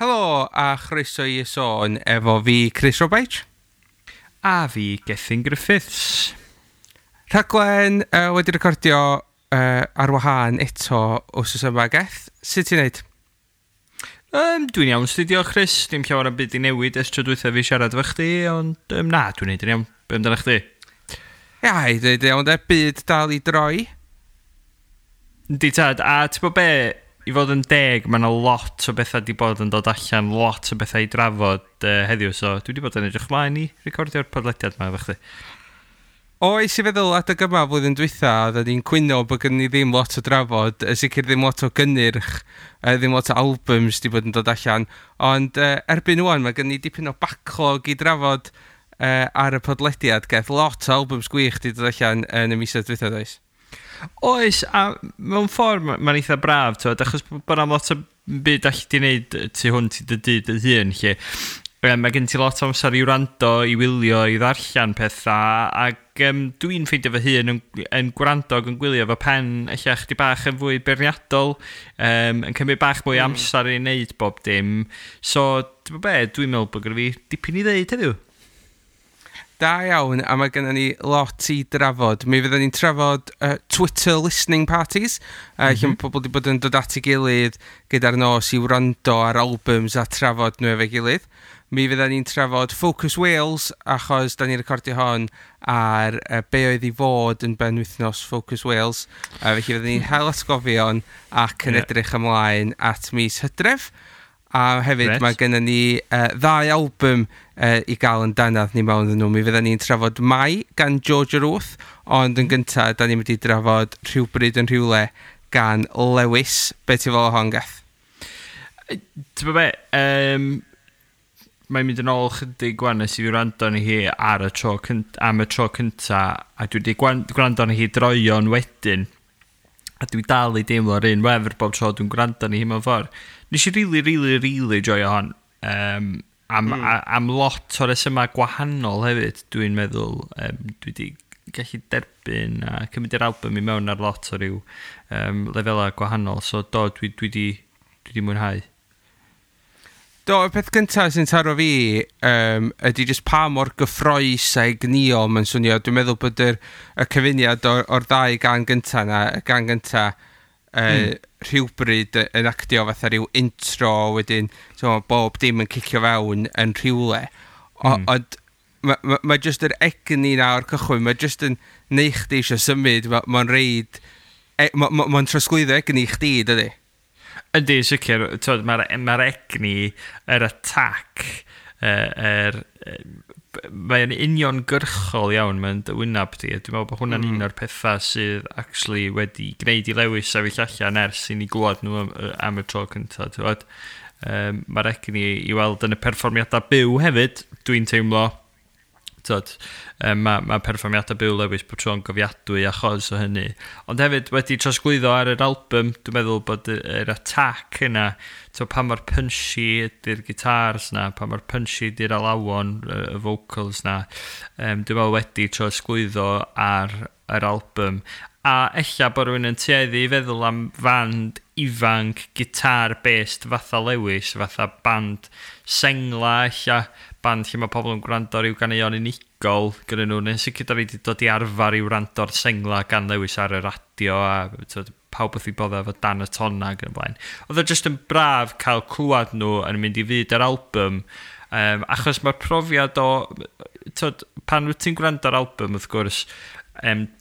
Helo a chroeso i Y Sôn efo fi, Chris Robaich. A fi, Gethin Griffiths. Rhaglen wedi recordio ar wahân eto wsos yma, Geth. Sut ti'n neud? Dwi'n iawn, sti, diolch Chris. Dim llawer o byd i newid ers tro dwytha fi siarad efo chdi, ond na, dwi'n neud yn iawn. Be amdano chdi? Ia, i dweud iawn de, byd dal i droi. Yndi tad, a ti'n bod be, i fod yn deg, mae yna lot o bethau di bod yn dod allan, lot o bethau i drafod heddiw, so dwi wedi bod yn edrych mlaen i recordio'r podlediad yma efo chdi. Oes, i feddwl adeg yma flwyddyn dwytha, oedden ni'n cwyno bod gen ni ddim lot o drafod, sicr ddim lot o gynnyrch, ddim lot o albums di bod yn dod allan, ond erbyn ŵan mae gen ni dipyn o backlog i drafod ar y podlediad, Geth. Lot o albums gwych di dod allan yn y misoedd dwytha, does? Oes, a mewn ffordd mae'n eitha braf, twyd, achos bod 'na'm lot o byd allu di wneud tu hwnt i dy dŷ dy hun, lle. Mae gen ti lot o amser i wrando, i wylio, i ddarllen pethau, ac dwi'n ffeindio fy hun yn gwrando ac yn gwylio fo pen ella chdi bach yn fwy beirniadol, yn cymryd bach mwy amser i wneud bob dim. So, ti'n be, dwi'n meddwl bod gyda fi dipyn i ddeud heddiw. Da iawn, a mae gennym ni lot i drafod. Mi fyddwn ni'n trafod Twitter listening parties, lle mae pobl wedi bod yn dod at ei gilydd gyda'r nos i wrando ar albums a trafod nhw efo'i gilydd. Mi fyddwn ni'n trafod Focus Wales, achos da ni'n recordio hon ar be oedd i fod yn benwythnos Focus Wales. Felly fyddwn ni'n hel atgofion ac yn edrych ymlaen at mis Hydref. A hefyd mae gennym ni ddau album i gael yn dannadd ni mewn nhw. Mi fydden ni'n trafod Mai gan Georgia Ruth, ond yn gyntaf, da ni'n mynd i drafod Rhywbryd yn Rhywle gan Lewys. Be ti'n fel o hon, Geth? Ti'n be, mae'n mynd yn ôl chydig gwan nes i fi wrando arni hi ar y tro am y tro cynta, a dwi wedi gwrando arni hi droion wedyn, a dwi dal i deimlo'r un wefr bob tro dwi'n gwrando arni hi mewn ffordd. Nes i really, really, really joio hon. Am lot o resymau gwahanol hefyd, dwi'n meddwl. Dwi wedi gallu derbyn a cymryd yr album i mewn ar lot o ryw lefelau gwahanol. So do, dwi di mwynhau. Do, y peth gyntaf sy'n taro fi ydy jyst pa mor gyffrous a egnïol mae'n swnio. Dwi'n meddwl bod y cyfuniad o'r ddau gan gyntaf na, y gan gyntaf Rhywbryd yn actio fatha rhyw intro, wedyn so, bob dim yn cicio fewn yn rhywle. Ond mae ma jyst yr egni na o'r cychwyn, mae jyst yn neu chdi eisiau symud, mae'n ma reid, ma trosglwyddo egni i chdi, dydy? Yndi, sicr, mae'r ma egni, yr attack, mae'n uniongyrchol iawn, mae'n dy wynab di. Dwi'n meddwl bod hwnna'n un o'r pethau sydd actually wedi gwneud i Lewis sefyll allan ers i ni glwad nhw am y tro cyntaf. Ti'n gwbod? Mae'r egni i weld yn y perfformiadau byw hefyd, dwi'n teimlo. Tyd, ma perfformiadau byw Lewis bod tro'n gofiadwy achos o hynny. Ond hefyd wedi trosglwyddo ar yr album, dwi'n meddwl bod yr attack yna, to, pa mor punchy ydy'r guitars na, pa mor punchy ydy'r alawon, y vocals na, dwi'n meddwl wedi trosglwyddo ar yr album. A ella bod rhywun yn tueddu i feddwl am fand ifanc, guitar-based fatha Lewis, fatha band sengla, ella band lle mae pobl yn gwrando ar ryw ganeuon unigol gyda nhw, neu'n sicr da ni wedi dod i arfer i wrando ar sengla gan Lewis ar y radio a t'od, pawb wrth i bodda efo Dan y Tonna ac yn y blaen. Oedd o jyst yn braf cael clywed nhw yn mynd i fyd yr album, achos mae'r profiad o, t'od, pan wyt ti'n gwrando ar album, wrth gwrs,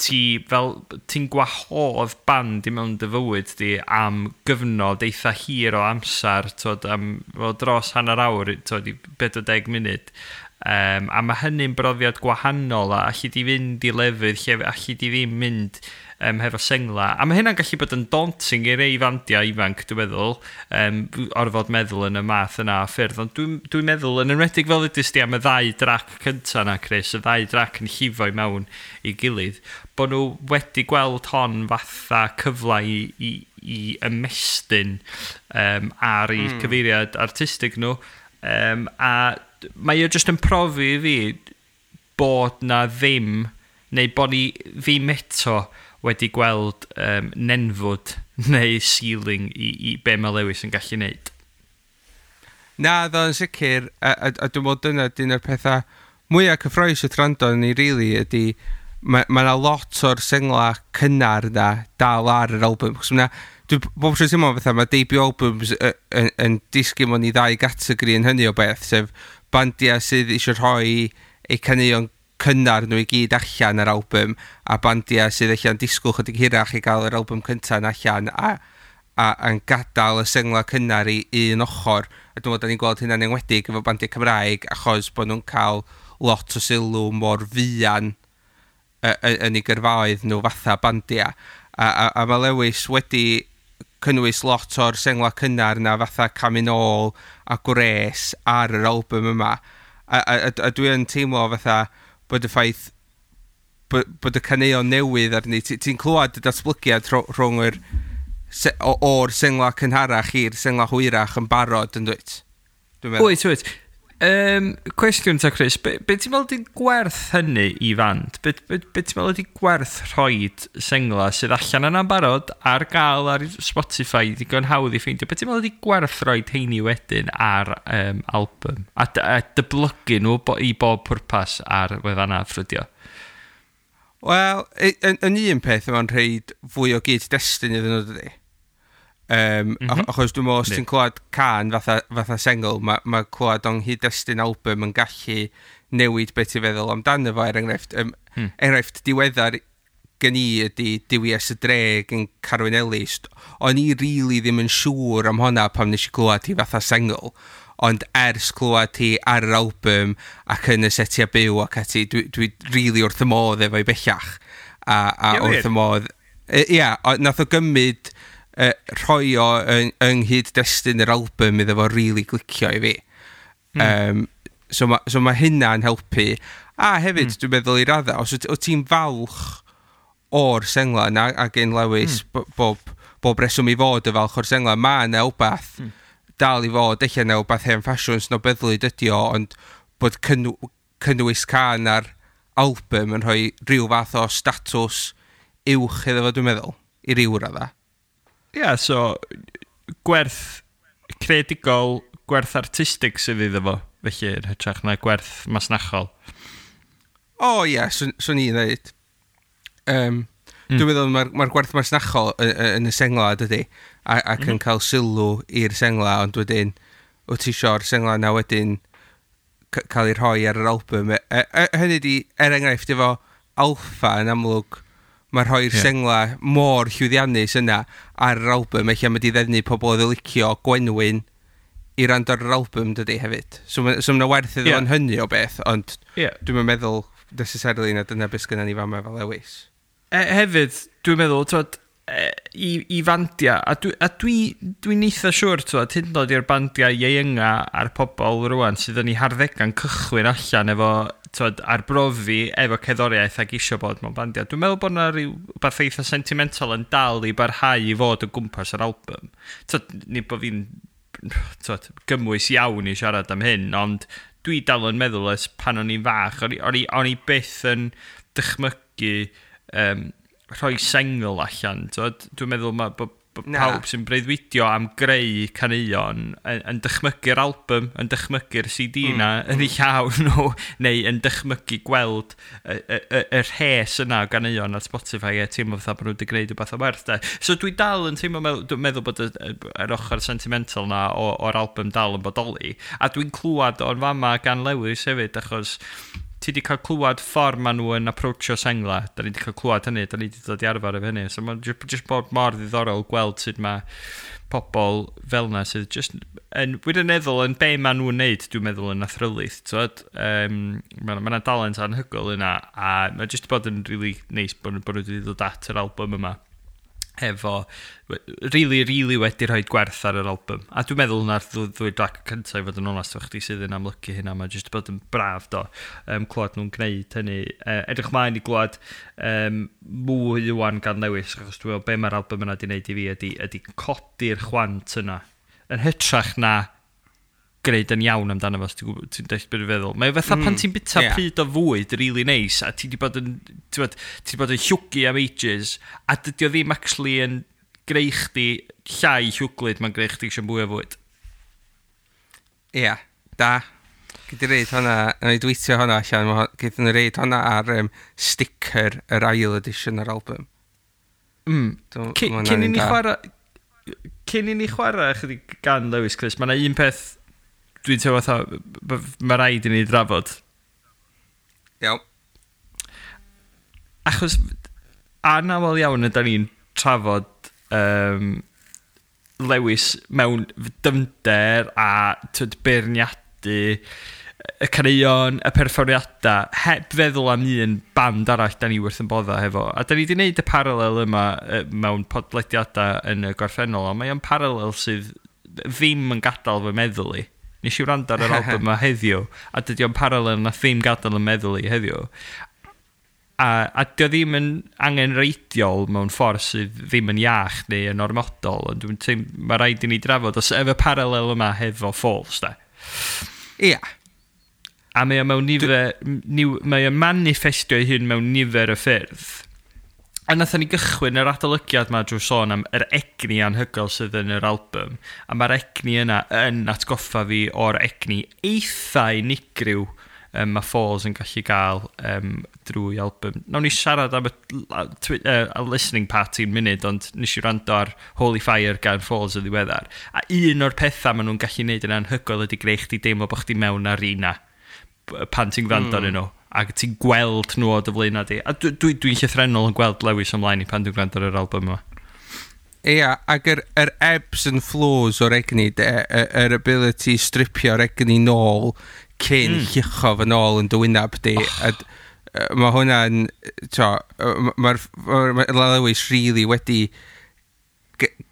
ti fel, ti'n gwahodd band i mewn dy fywyd di am gyfnod eitha hir o amser, t'od, am fel dros hanner awr, t'od, i 40 munud. A mae hynny'n brofiad gwahanol a allu di fynd i lefydd lle allu di ddim mynd hefo sengla. A mae hynna'n gallu bod yn daunting i rei fandiau ifanc, dwi'n meddwl, orfod meddwl yn y math yna o ffyrdd. Ond dwi'n dwi meddwl, yn enwedig fel ydys di am y ddau drac cynta na, Chris, y ddau drac yn llifo i mewn i gilydd, bod nhw wedi gweld hon fatha cyfle i ymestyn ar eu cyfeiriad artistig nhw. A mae o jyst yn profi i fi bod na ddim, neu bod ni ddim eto wedi gweld nenfwd neu ceiling i be mae Lewis yn gallu neud. Na, ddo yn sicr, a dwi'n meddwl dyna dyn o'r pethau mwyaf cyffrous wrth rando ni, really, ydy mae ma 'na lot o'r sengla cynnar na dal ar yr album. Chos ma' dwi bob tro'n teimlo fatha mae debut albums yn disgyn mewn i ddau gategori yn hynny o beth, sef bandiau sydd eisiau rhoi eu caneuon cynnar nhw i gyd allan ar album, a bandiau sydd allan disgwyl chydig hirach i gael yr album cyntaf yn allan a yn gadael y sengla cynnar i un ochr. A dwi'n meddwl da ni'n gweld hynna'n enwedig efo bandiau Cymraeg, achos bod nhw'n cael lot o sylw mor fuan yn eu gyrfaoedd nhw fatha bandiau. A mae Lewis wedi cynnwys lot o'r sengla cynnar na fatha Camu Nôl a Gwres ar yr album yma. A dwi yn teimlo fatha bod y ffaith bod y caneuon newydd arni, ti'n clywed y datblygiad rhwng yr o'r sengla cynharach i'r sengla hwyrach yn barod, yn dwyt? Dwi'n meddwl. Wyt. Cwestiwn ta, Chris, be ti'n meddwl ydi gwerth hynny i fand? Be ti'n meddwl ydi gwerth rhoid sengla sydd allan yna'n barod ar gael ar Spotify, digon hawdd i ffeindio? Be ti'n meddwl ydi gwerth rhoid heini wedyn ar album? A dyblygu nhw i bob pwrpas ar wefannau ffrydio? Wel, yn un peth, mae'n rhaid fwy o gyd-destun iddyn nhw, dydy? Achos dwi'n meddwl, os ti'n clywed can fatha sengl, ma clywed o'n nghyd-destun album yn gallu newid beth ti'n feddwl amdano fo, er enghraifft. Enghraifft diweddar gen i ydy Duwies y Dre gan Carwyn Ellis. O'n i really ddim yn siŵr am honna pam nes i clywed hi fatha sengl. Ond ers clywed hi ar yr album ac yn y setiau byw ac ati, dwi really wrth y modd efo'i bellach. A wrth y modd. Ia, nath o gymryd rhoi o yng nghyd-destun yr album iddo fo really glicio i fi. So ma hynna'n helpu. A hefyd, dwi'n meddwl i radda, os wyt ti'n falch o'r sengla yna, a gen Lewis bob reswm i fod y falch o'r sengla, mae yna wbath dal i fod, eich yna wbath hen ffasiwn snobyddlyd ydi o, ond bod cynnwys can ar album yn rhoi rhyw fath o statws uwch iddo fo, dwi'n meddwl, i ryw radda. Ie, yeah, so gwerth creadigol, gwerth artistig sydd iddo fo, felly, yn hytrach na gwerth masnachol. O ie, yeah, swn i'n dweud. Dwi'n meddwl mae'r gwerth masnachol yn y sengla, dydy, ac yn cael sylw i'r sengla, ond wedyn, wyt ti isio'r sengla na wedyn cael ei rhoi ar yr album. Hynny di, er enghraifft, efo Alpha yn amlwg, mae rhoi'r sengla mor llwyddiannus yna ar yr album, eich am ydi ddefnu pobl oedd yn licio Gwenwyn i rand ar yr album, dydy, hefyd. So ma' werth iddo fo'n hynny o beth, ond dwi'n meddwl necessarily na dyna beth sgynna ni fama fel Lewis. Hefyd, dwi'n meddwl, twod, i fandiau, a dwi'n eitha siŵr, twod, hyd yn oed i'r bandiau ieuenga a'r pobl rwan sydd yn eu harddegau'n cychwyn allan efo, twod, arbrofi efo cerddoriaeth ac isio bod mewn bandiau. Dwi'n meddwl bod yna rhyw beth eitha sentimental yn dal i barhau i fod o gwmpas yr album. Twod, nid bod fi'n, twod, gymwys iawn i siarad am hyn, ond dwi dal yn meddwl ers pan o'n i'n fach, o'n i byth yn dychmygu rhoi sengl allan. Twod? Dwi'n meddwl mae bod Na. pawb sy'n breuddwydio am greu caneuon yn dychmygu'r album, yn dychmygu'r CD na yn eu llaw nhw, neu yn dychmygu gweld y rhes yna o ganeuon ar Spotify a teimlo fatha bod nhw wedi gwneud rhywbeth o werth, de. So dwi dal yn teimlo, dwi'n meddwl bod yr ochr sentimental na o'r album dal yn bodoli. A dwi'n clywed o'n fama gan Lewis hefyd, achos ti wedi cael clywed ffordd maen nhw yn approachio sengla. Da ni wedi cael clywed hynny, da ni wedi dod i arfer efo hynny. So mae'n just bod mor ddiddorol gweld sut mae pobl fel yna sydd just yn wirioneddol yn be maen nhw'n neud, dwi'n meddwl, yn athrylith. Mae yna dalent anhygoel yna, a mae just bod yn really neis bod nhw wedi dod at yr album yma efo really, really wedi rhoi gwerth ar yr album. A dwi'n meddwl na'r ddwy drac cyntaf, i fod yn onest efo chdi, sydd yn amlygu hynna. Mae jyst bod yn braf do, clywed nhw'n gwneud hynny. Edrych mlaen i glywed mwy wan gan Lewis, achos dwi'n meddwl be mae'r album yna wedi gwneud i fi ydy codi'r chwant yna. Yn hytrach na gwneud yn iawn amdano fo, os ti'n deall beth dwi'n feddwl. Mae fatha pan ti'n bita pryd o fwyd really nice, a ti di bod yn, ti'n bod, ti di bod yn llwgu am ages, a dydy o ddim actually yn greu chdi llai llwglyd, mae'n greu chdi eisiau mwy o fwyd. Ia, yeah, da. Gyd i reid hwnna, na i dweitio hwnna allan, gyd nhw reid hwnna ar sticker yr ail edition o'r album. Cyn i ni chwarae chydig gan Lewis Chris, mae yna un peth dwi'n teimlo fatha, mae rhaid i ni drafod. Iawn. Achos anaml iawn yda ni'n trafod Lewis mewn dyfnder a tyd, beirniadu y caneuon, y perfformiadau, heb feddwl am un band arall da ni wrth yn bodda hefo. A da ni wedi gwneud y paralel yma mewn podlediadau yn y gorffennol, ond mae o'n paralel sydd ddim yn gadael fy meddwl i. Nes i wrando ar yr album yma heddiw, a dydy o'n paralel na ddim gadael yn meddwl i heddiw. A dio ddim yn angenreidiol mewn ffordd sydd ddim yn iach neu yn ormodol, ond dwi'n teimlo mae rhaid i ni drafod os efo paralel yma hefo Falls, da. Ia. Yeah. A mae o mewn nifer, mae o'n manifestio ei hun mewn nifer o ffyrdd. A nathon ni gychwyn yr adolygiad ma drwy sôn am yr egni anhygoel sydd yn yr album. A mae'r egni yna yn atgoffa fi o'r egni eitha unigryw mae Falls yn gallu gael drwy album. Nawn ni siarad am y listening party yn munud, ond nes i wrando ar Holy Fire gan Falls yn ddiweddar. A un o'r pethau maen nhw'n gallu neud yn anhygoel ydy greu chdi deimlo bod chdi mewn arena pan ti'n gwrando arnyn nhw ac ti'n gweld nhw o dy flaen di. A dwi'n dwi, dwi llythrennol yn gweld Lewis ymlaen i pan dwi'n gwrando ar yr album yma. Ia, ac yr ebbs and flows o'r egni, de, yr ability i stripio'r egni nôl cyn llucho fy nôl yn dy wynab di. Oh. A mae hwnna'n, mae'r ma Lewis really wedi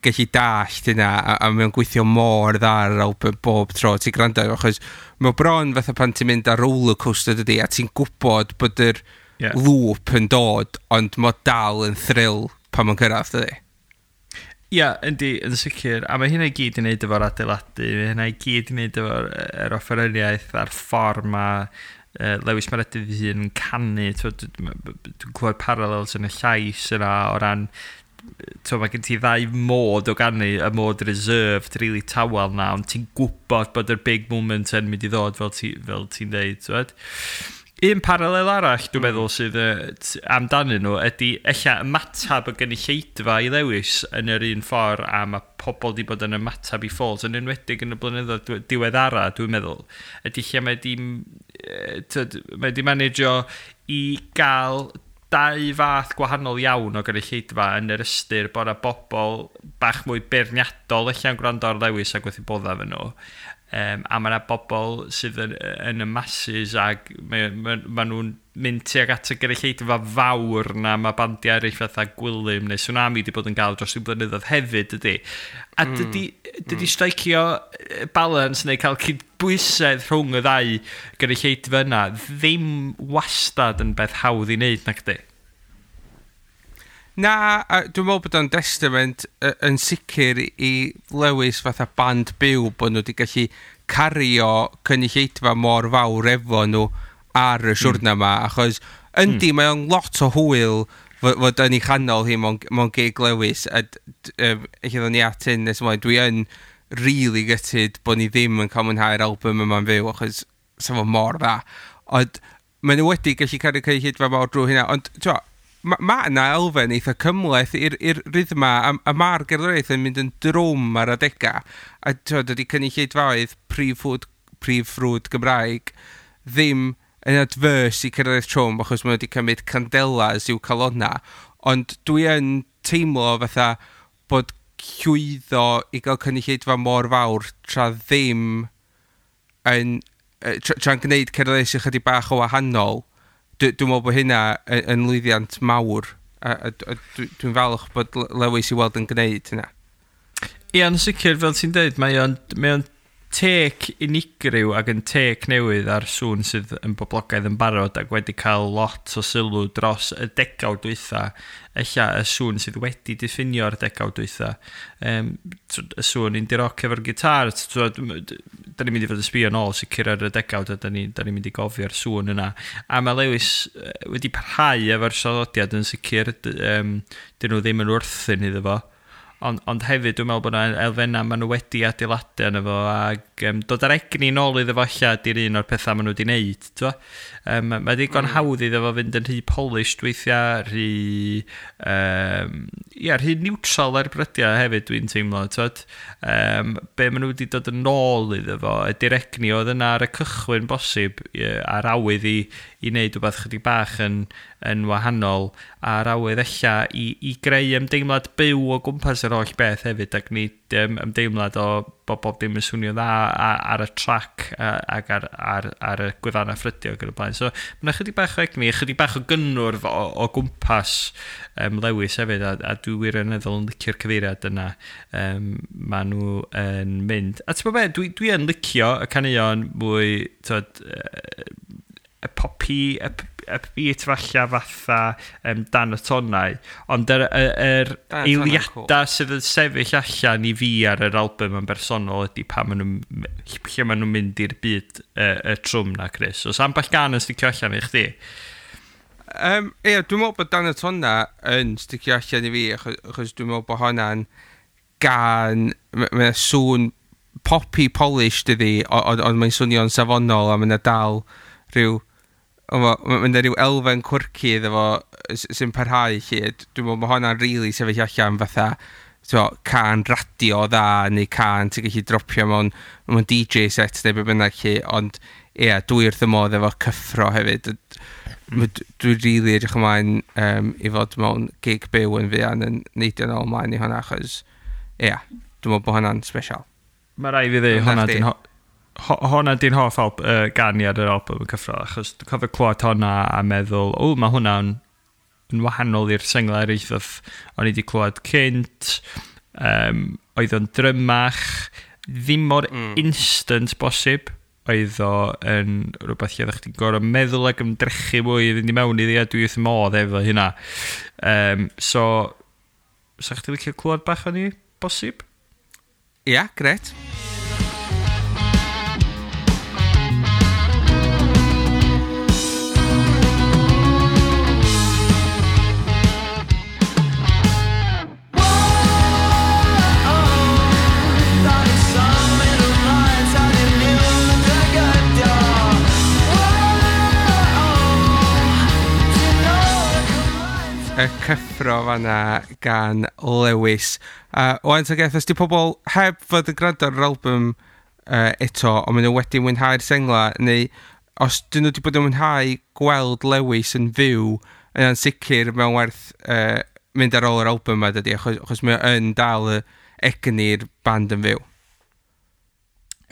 gallu dallt hynna a mae'n gweithio mor dda ar yr album bob tro ti'n gwrando, achos mae bron fatha pan ti'n mynd ar roller coaster dydy a ti'n gwybod bod yr loop yn dod, ond mae dal yn thrill pan mae'n cyrraedd, dydy. Ia, yeah, yndi, yn sicr. A mae hynna i gyd i wneud efo'r adeiladu, mae hynna i gyd i wneud efo'r yr offeryniaeth a'r ffordd mae Lewis Meredydd ei hun yn canu. Dwi'n clywed parallels yn y llais yna o ran t'wo, mae gen ti ddau mod o ganu, y mod reserved, really tawel na, ond ti'n gwybod bod yr big moment yn mynd i ddod fel ti'n fel ti dweud. T'wod? Un paralel arall, dwi'n meddwl, sydd amdanyn nhw ydy ella ymatab y gynulleidfa i Lewis yn yr un ffordd a mae pobl di bod yn ymatab i Falls, yn enwedig yn y blynyddoedd diweddara, dwi'n meddwl, ydy lle mae di managio i gael dau fath gwahanol iawn o gynulleidfa yn yr ystyr bod yna bobl bach mwy beirniadol ella'n gwrando ar Lewis ac wrth i bodda efo nhw. A mae yna bobl sydd yn y masses ac ma nhw'n mynd tuag at y gynulleidfa fawr na mae bandiau eraill fatha Gwilym neu Swnami wedi bod yn gael dros y blynyddoedd hefyd, dydy. A dydy stricio balance neu cael cydbwysedd rhwng y ddau gynulleidfa yna ddim wastad yn beth hawdd i wneud, nac di? Na, a dwi'n meddwl bod o'n testament yn sicr i Lewis fatha band byw bod nhw wedi gallu cario cynulleidfa mor fawr efo nhw ar y siwrna yma, achos yndi, mae o'n lot o hwyl fod yn ei chanol hi mewn gig Lewis, a lle ddod ni at hyn nes ymlaen, dwi yn really gutted bod ni ddim yn cael mwynhau'r album yma'n fyw, achos sa fo mor dda. Ond maen nhw wedi gallu cario cynulleidfa mawr drwy hynna, ond t'mo, ma yna elfen eitha cymhleth i'r rhythma, a mae'r gerddoriaeth yn mynd yn drwm ar adega, a t'mo, dydy cynulleidfaoedd prif ffrwd Gymraeg ddim yn adverse i cerddoriaeth trwm, achos maen nhw wedi cymryd candelas i'w calona, ond dwi yn teimlo fatha bod llwyddo i gael cynulleidfa mor fawr tra ddim yn tra'n gwneud cerddoriaeth sy'n chydig bach o wahanol, dwi'n meddwl bod hynna yn lwyddiant mawr, a dwi'n falch bod Lewis i weld yn gwneud hynna. Ie, yn sicr, fel ti'n dweud, mae o'n take unigryw ac yn take newydd ar sŵn sydd yn boblogaidd yn barod ac wedi cael lot o sylw dros y degawd dwytha. Ella y sŵn sydd wedi diffinio'r degawd dwytha. Y sŵn indie rock efo'r gitar, da ni'n mynd i fod yn sbio nôl sicr ar y degawd a da ni mynd i gofio'r sŵn yna. A mae Lewis wedi parhau efo'r traddodiad yn sicr, dyn nhw ddim yn wrthyn iddo fo. Ond hefyd dwi'n meddwl bod yna elfennau maen nhw wedi adeiladu arno fo, ac dod ar egni nôl iddo fo ella di'r un o'r pethau maen nhw wedi wneud. Mae digon hawdd iddo fo fynd yn rhy polished weithiau, rhy, ia, rhy neutral ar brydiau hefyd dwi'n teimlo. Be maen nhw wedi dod yn ôl iddo fo ydy'r egni oedd yna ar y cychwyn bosib, a'r awydd i wneud rhywbeth chydig bach yn wahanol, a'r awydd ella i greu ymdeimlad byw o gwmpas yr holl beth hefyd, ac nid ymdeimlad o bod bob dim yn swnio dda ar y trac ac ar y gwefannau ffrydio ac yn y blaen. So mae yna chydig bach o egni, chydig bach o gynnwrf o gwmpas Lewis hefyd, a dwi wirioneddol yn licio'r cyfeiriad yna maen nhw yn mynd. A ti'n gwybod be, dwi yn licio y caneuon mwy, t'od, y poppy, upbeat falla fatha Dan y Tonnau, ond yr eiliadau sydd yn sefyll allan i fi ar yr album yn bersonol ydy pan maen nhw, lle maen nhw'n mynd i'r byd y trwm na, Chris. Oes ambell gan yn sticio allan i chdi? Ie, dwi'n meddwl bod Dan y Tonnau yn sticio allan i fi, achos dwi'n meddwl bod hwnna'n gan, mae'n sŵn poppy polished ydi, ond mae'n swnio'n safonol a mae'n dal rhyw, mae'n rhyw elfen quirky iddo fo sy'n parhau lle. Dwi'n meddwl bod hwnna'n really sefyll allan fatha cân radio dda neu cân ti'n gallu dropio mewn DJ set neu be bynnag lle, ond ie, dwi wrth y modd efo Cyffro hefyd. Dwi'n really edrych ymlaen i fod mewn gig byw yn fuan yn neidio nôl ymlaen i hwnna, achos ie, dwi'n meddwl bod hwnna'n special. Mae rai fi ddweud, hwnna di'n hoff gan i ar yr album yn Cyffro, achos dwi'n cofio clywed hwnna a meddwl, o, mae hwnna'n yn wahanol i'r senglau eraill o'n i wedi clywed cynt, oedd o'n drymach, ddim mor instant bosib, oedd o yn rhywbeth lle oeddech chdi'n gorfod meddwl ac ymdrechu mwy i fynd i mewn iddi, a dwi wrth modd efo hynna. So, sa chdi licio clywed bach o'n i, bosib? Ia, yeah, gret. Y Cyffro fanna gan Lewis. Wan ta Geth, os di pobl heb fod yn gwrando ar yr album eto, ond maen nhw wedi mwynhau'r sengla, neu os dyn nhw wedi bod yn mwynhau gweld Lewis yn fyw, yna'n sicr mewn werth mynd ar ôl yr album yma, dydy, achos mae yn dal y egni'r band yn fyw.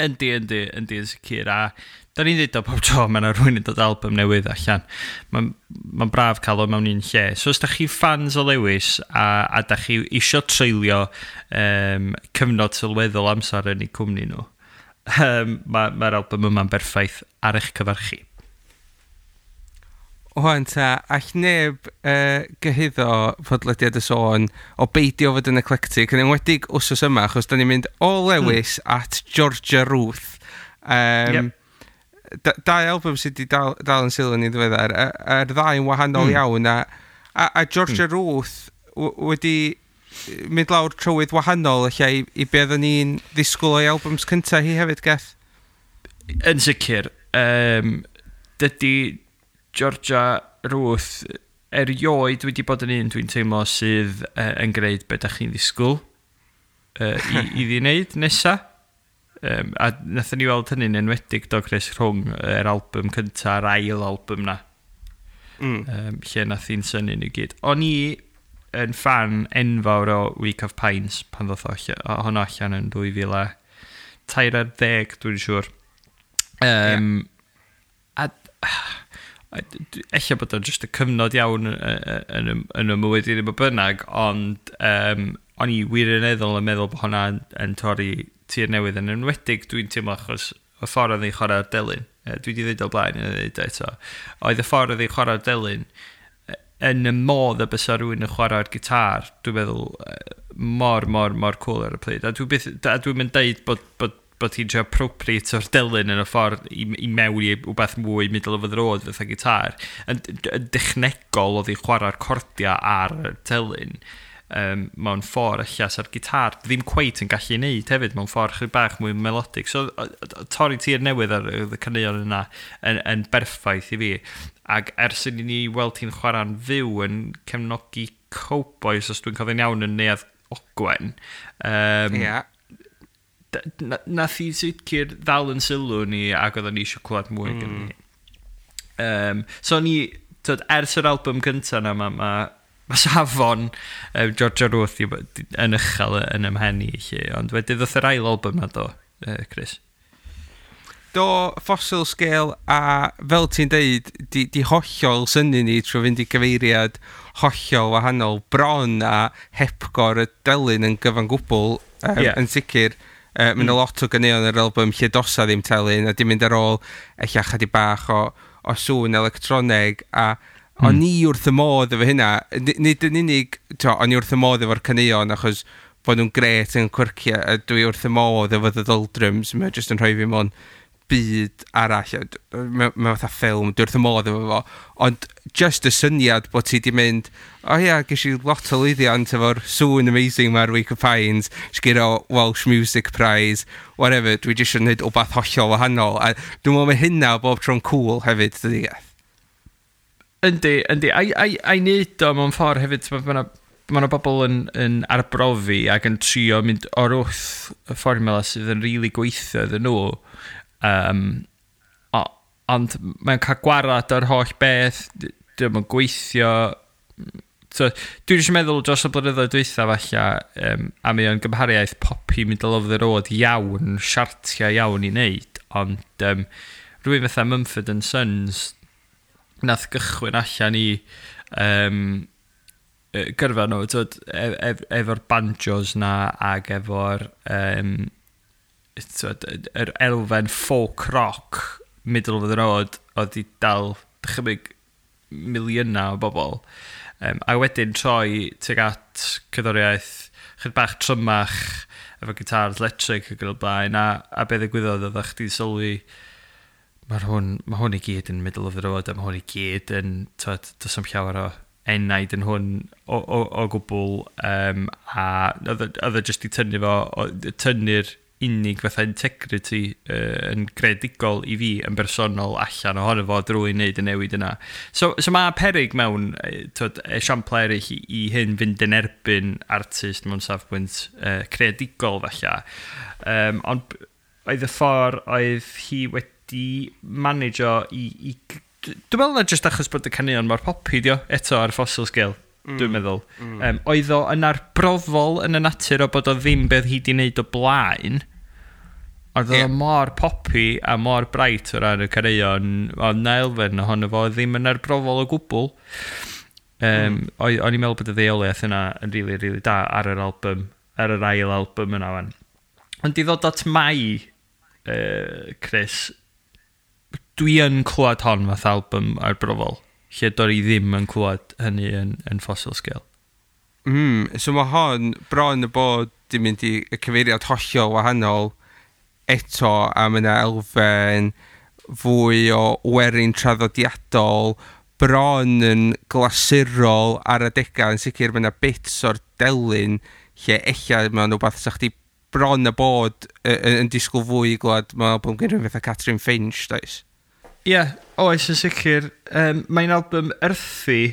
Yndi, yn sicr, a da ni'n dweud o pob tro mae yna rhywun yn dod album newydd allan. Mae'n ma braf cael o mewn un lle. So os da chi fans o Lewis a da chi isio treulio cyfnod sylweddol amser yn eu cwmni nhw, mae'r album yma'n berffaith ar eich cyfer chi. Wan ta, all neb gyhuddo podlediad y sôn o beidio fod yn eclectic, yn enwedig wsos yma, achos da ni'n mynd o Lewis at Georgia Ruth. Yep. Dau album sydd wedi dal yn sylw ni ddiweddar, a'r ddau yn wahanol iawn, a Georgia Ruth wedi mynd lawr trywydd wahanol lle i be oedden ni'n ddisgwyl o'i albums cyntaf hi hefyd, Geth? Yn sicr, dydy Georgia Ruth erioed wedi bod yn un dwi'n teimlo sydd yn gwneud be da chi'n ddisgwyl i wneud nesa. A nathon ni weld hynny'n enwedig do, Chris, rhwng yr album cynta a'r ail album na. Lle nath hi'n synnu ni gyd. O'n i yn fan enfawr o Week of Pines pan ddoth honno allan yn 2013, dwi'n siŵr. A ella bod o'n just y cyfnod iawn yn y mywyd i ddim o bynnag, ond o'n i wirioneddol yn meddwl bod hwnna yn torri tir newydd, yn enwedig dwi'n teimlo achos y ffordd oedd hi'n chwarae'r delyn. Dwi wedi dweud o blaen yn dweud eto. Oedd y ffordd oedd hi'n chwarae'r delyn yn y modd y bysa rhywun yn chwarae'r gitar, dwi'n meddwl mor, mor, mor cool ar y pryd. A dwi'n mynd deud bod hi'n trio appropriate o'r delyn yn y ffordd i mewn i wbeth mwy middle of the road fatha gitar. Yn dechnegol oedd hi'n chwarae'r cordiau ar y delyn. mewn ffordd ella sa'r gitar ddim cweit yn gallu neud hefyd, mewn ffordd chydig bach mwy melodic. So torri tir newydd ar y caneuon yna yn berffaith i fi. Ac ers i ni weld hi'n chwarae'n fyw yn cefnogi Cowboys, os dwi'n cofio'n iawn, yn Neuadd Ogwen. Yeah. Nath hi sicr ddal yn sylw ni ac oedden ni eisiau clywed mwy gen ni. So ni, tyd, ers yr album cyntaf na, ma safon Georgia Ruth yn uchel yn ymhen i, lle. Ond wedyn ddoth yr ail album na do, Chris. Do, Fossil Scale, a fel ti'n deud, di hollol synnu ni trwy fynd i gyfeiriad hollol wahanol, bron a hepgor y delyn yn gyfan gwbl, yn sicr. Mae yna lot o ganeuon yr album lle dosa ddim telyn, a di mynd ar ôl ella chydig bach o sŵn electroneg, a o'n i wrth y modd efo hynna. Nid yn unig, to, o'n i wrth y modd efo'r caneuon, achos bod nhw'n gret yn quirky, a dwi wrth y modd efo The Doldrums, mae jyst yn rhoi fi mewn byd arall, mae fatha ffilm, dwi wrth y modd efo fo, ond just y syniad bod ti di mynd, o ia, ges i lot o lwyddiant efo'r sŵn amazing mae'r Week of Pines, sgiro Welsh Music Prize, whatever, dwi jyst yn gwneud wbath hollol wahanol, a dwi'n meddwl mae hynna bob tro'n cool hefyd, dydy Geth? Yndi, yndi. A i wneud o mewn ffordd hefyd, mae yna bobl yn arbrofi ac yn trio mynd o'r wrth y fformula sydd yn rili really gweithio iddyn nhw. Ond mae'n cael gwarad o'r holl beth, dio'm yn gweithio. So, dwi'n jyst meddwl dros y blynyddoedd dwytha falle, a mae o'n gymhariaeth poppy middle of the road iawn, siartiau iawn i wneud, ond rhywun fatha Mumford and Sons nath gychwyn allan i gyrfa nhw, tyd, efo'r banjos na ac efo'r tyd, yr elfen folk rock middle of the road oedd i dal dychymyg miliynau o bobl. A wedyn troi tuag at cerddoriaeth chydig bach trymach efo gitars electric ac yn y blaen, a be ddigwyddodd oedd chdi sylwi mae hwn i gyd yn middle of the road a mae hwn i gyd yn, tyd, does am llawer o enaid yn hwn o gwbl, a oedd o jyst i tynnu fo, tynnu'r unig fatha integrity yn greadigol i fi yn bersonol allan ohono fo drwy wneud y newid yna. So mae perig mewn tyd, esiamplau eraill i hyn fynd yn erbyn artist mewn safbwynt creadigol falle. Ond oedd y ffordd oedd hi wedi manageo i dwi'n meddwl na jyst achos bod y caneuon mor poppy dio eto ar Fossil Scale, dwi'n meddwl. Oedd o yn arbrofol yn y natur o bod o ddim beth hi di wneud o blaen, ond oedd o mor poppy a mor bright o ran y caneuon, oedd na elfen ohono fo ddim yn arbrofol o gwbl. O'n i'n meddwl bod y ddeuoliaeth yna yn really, really da ar yr album, ar yr ail album yna wan. Ond i ddod at Mai, Chris, dwi yn clywed hon fath album arbrofol, lle do'n i ddim yn clywed hynny yn Fossil Scale. So mae hon bron y bod di mynd i y cyfeiriad hollol wahanol eto, a mae yna elfen fwy o werin traddodiadol, bron yn glasurol ar adegau, yn sicr mae yna bits o'r delyn lle ella mae'n rhywbeth sa chdi bron y bod yn disgwyl fwy i glwad mewn album gen rhywun fatha Catrin Finch, does? Ie, yeah, oes yn sicr. Mae'n album earthy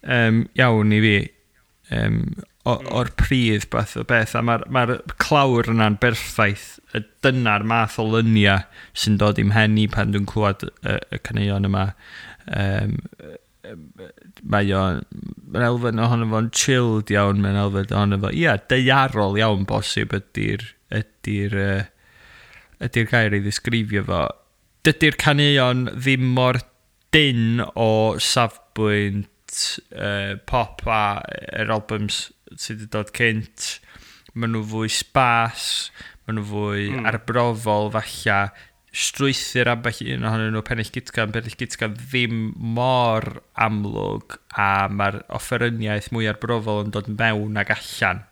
iawn i fi. O'r pridd beth o beth, a mae'r clawr yna'n berffaith. Dyna'r math o lyniau sy'n dod i'm mhen i pan dwi'n clywed y caneuon yma. Mae'n elfen ohono fo'n chilled iawn, mae'n elfen ohono fo, ia, daearol iawn bosib ydy'r gair i ddisgrifio fo. Dydy'r caneuon ddim mor dyn o safbwynt pop a yr albums sydd wedi dod cynt. Maen nhw fwy spas, maen nhw fwy arbrofol falle, strwythur ambell un ohonyn nhw, Pennill Gytgan ddim mor amlwg, a mae'r offeryniaeth mwy arbrofol yn dod mewn ag allan.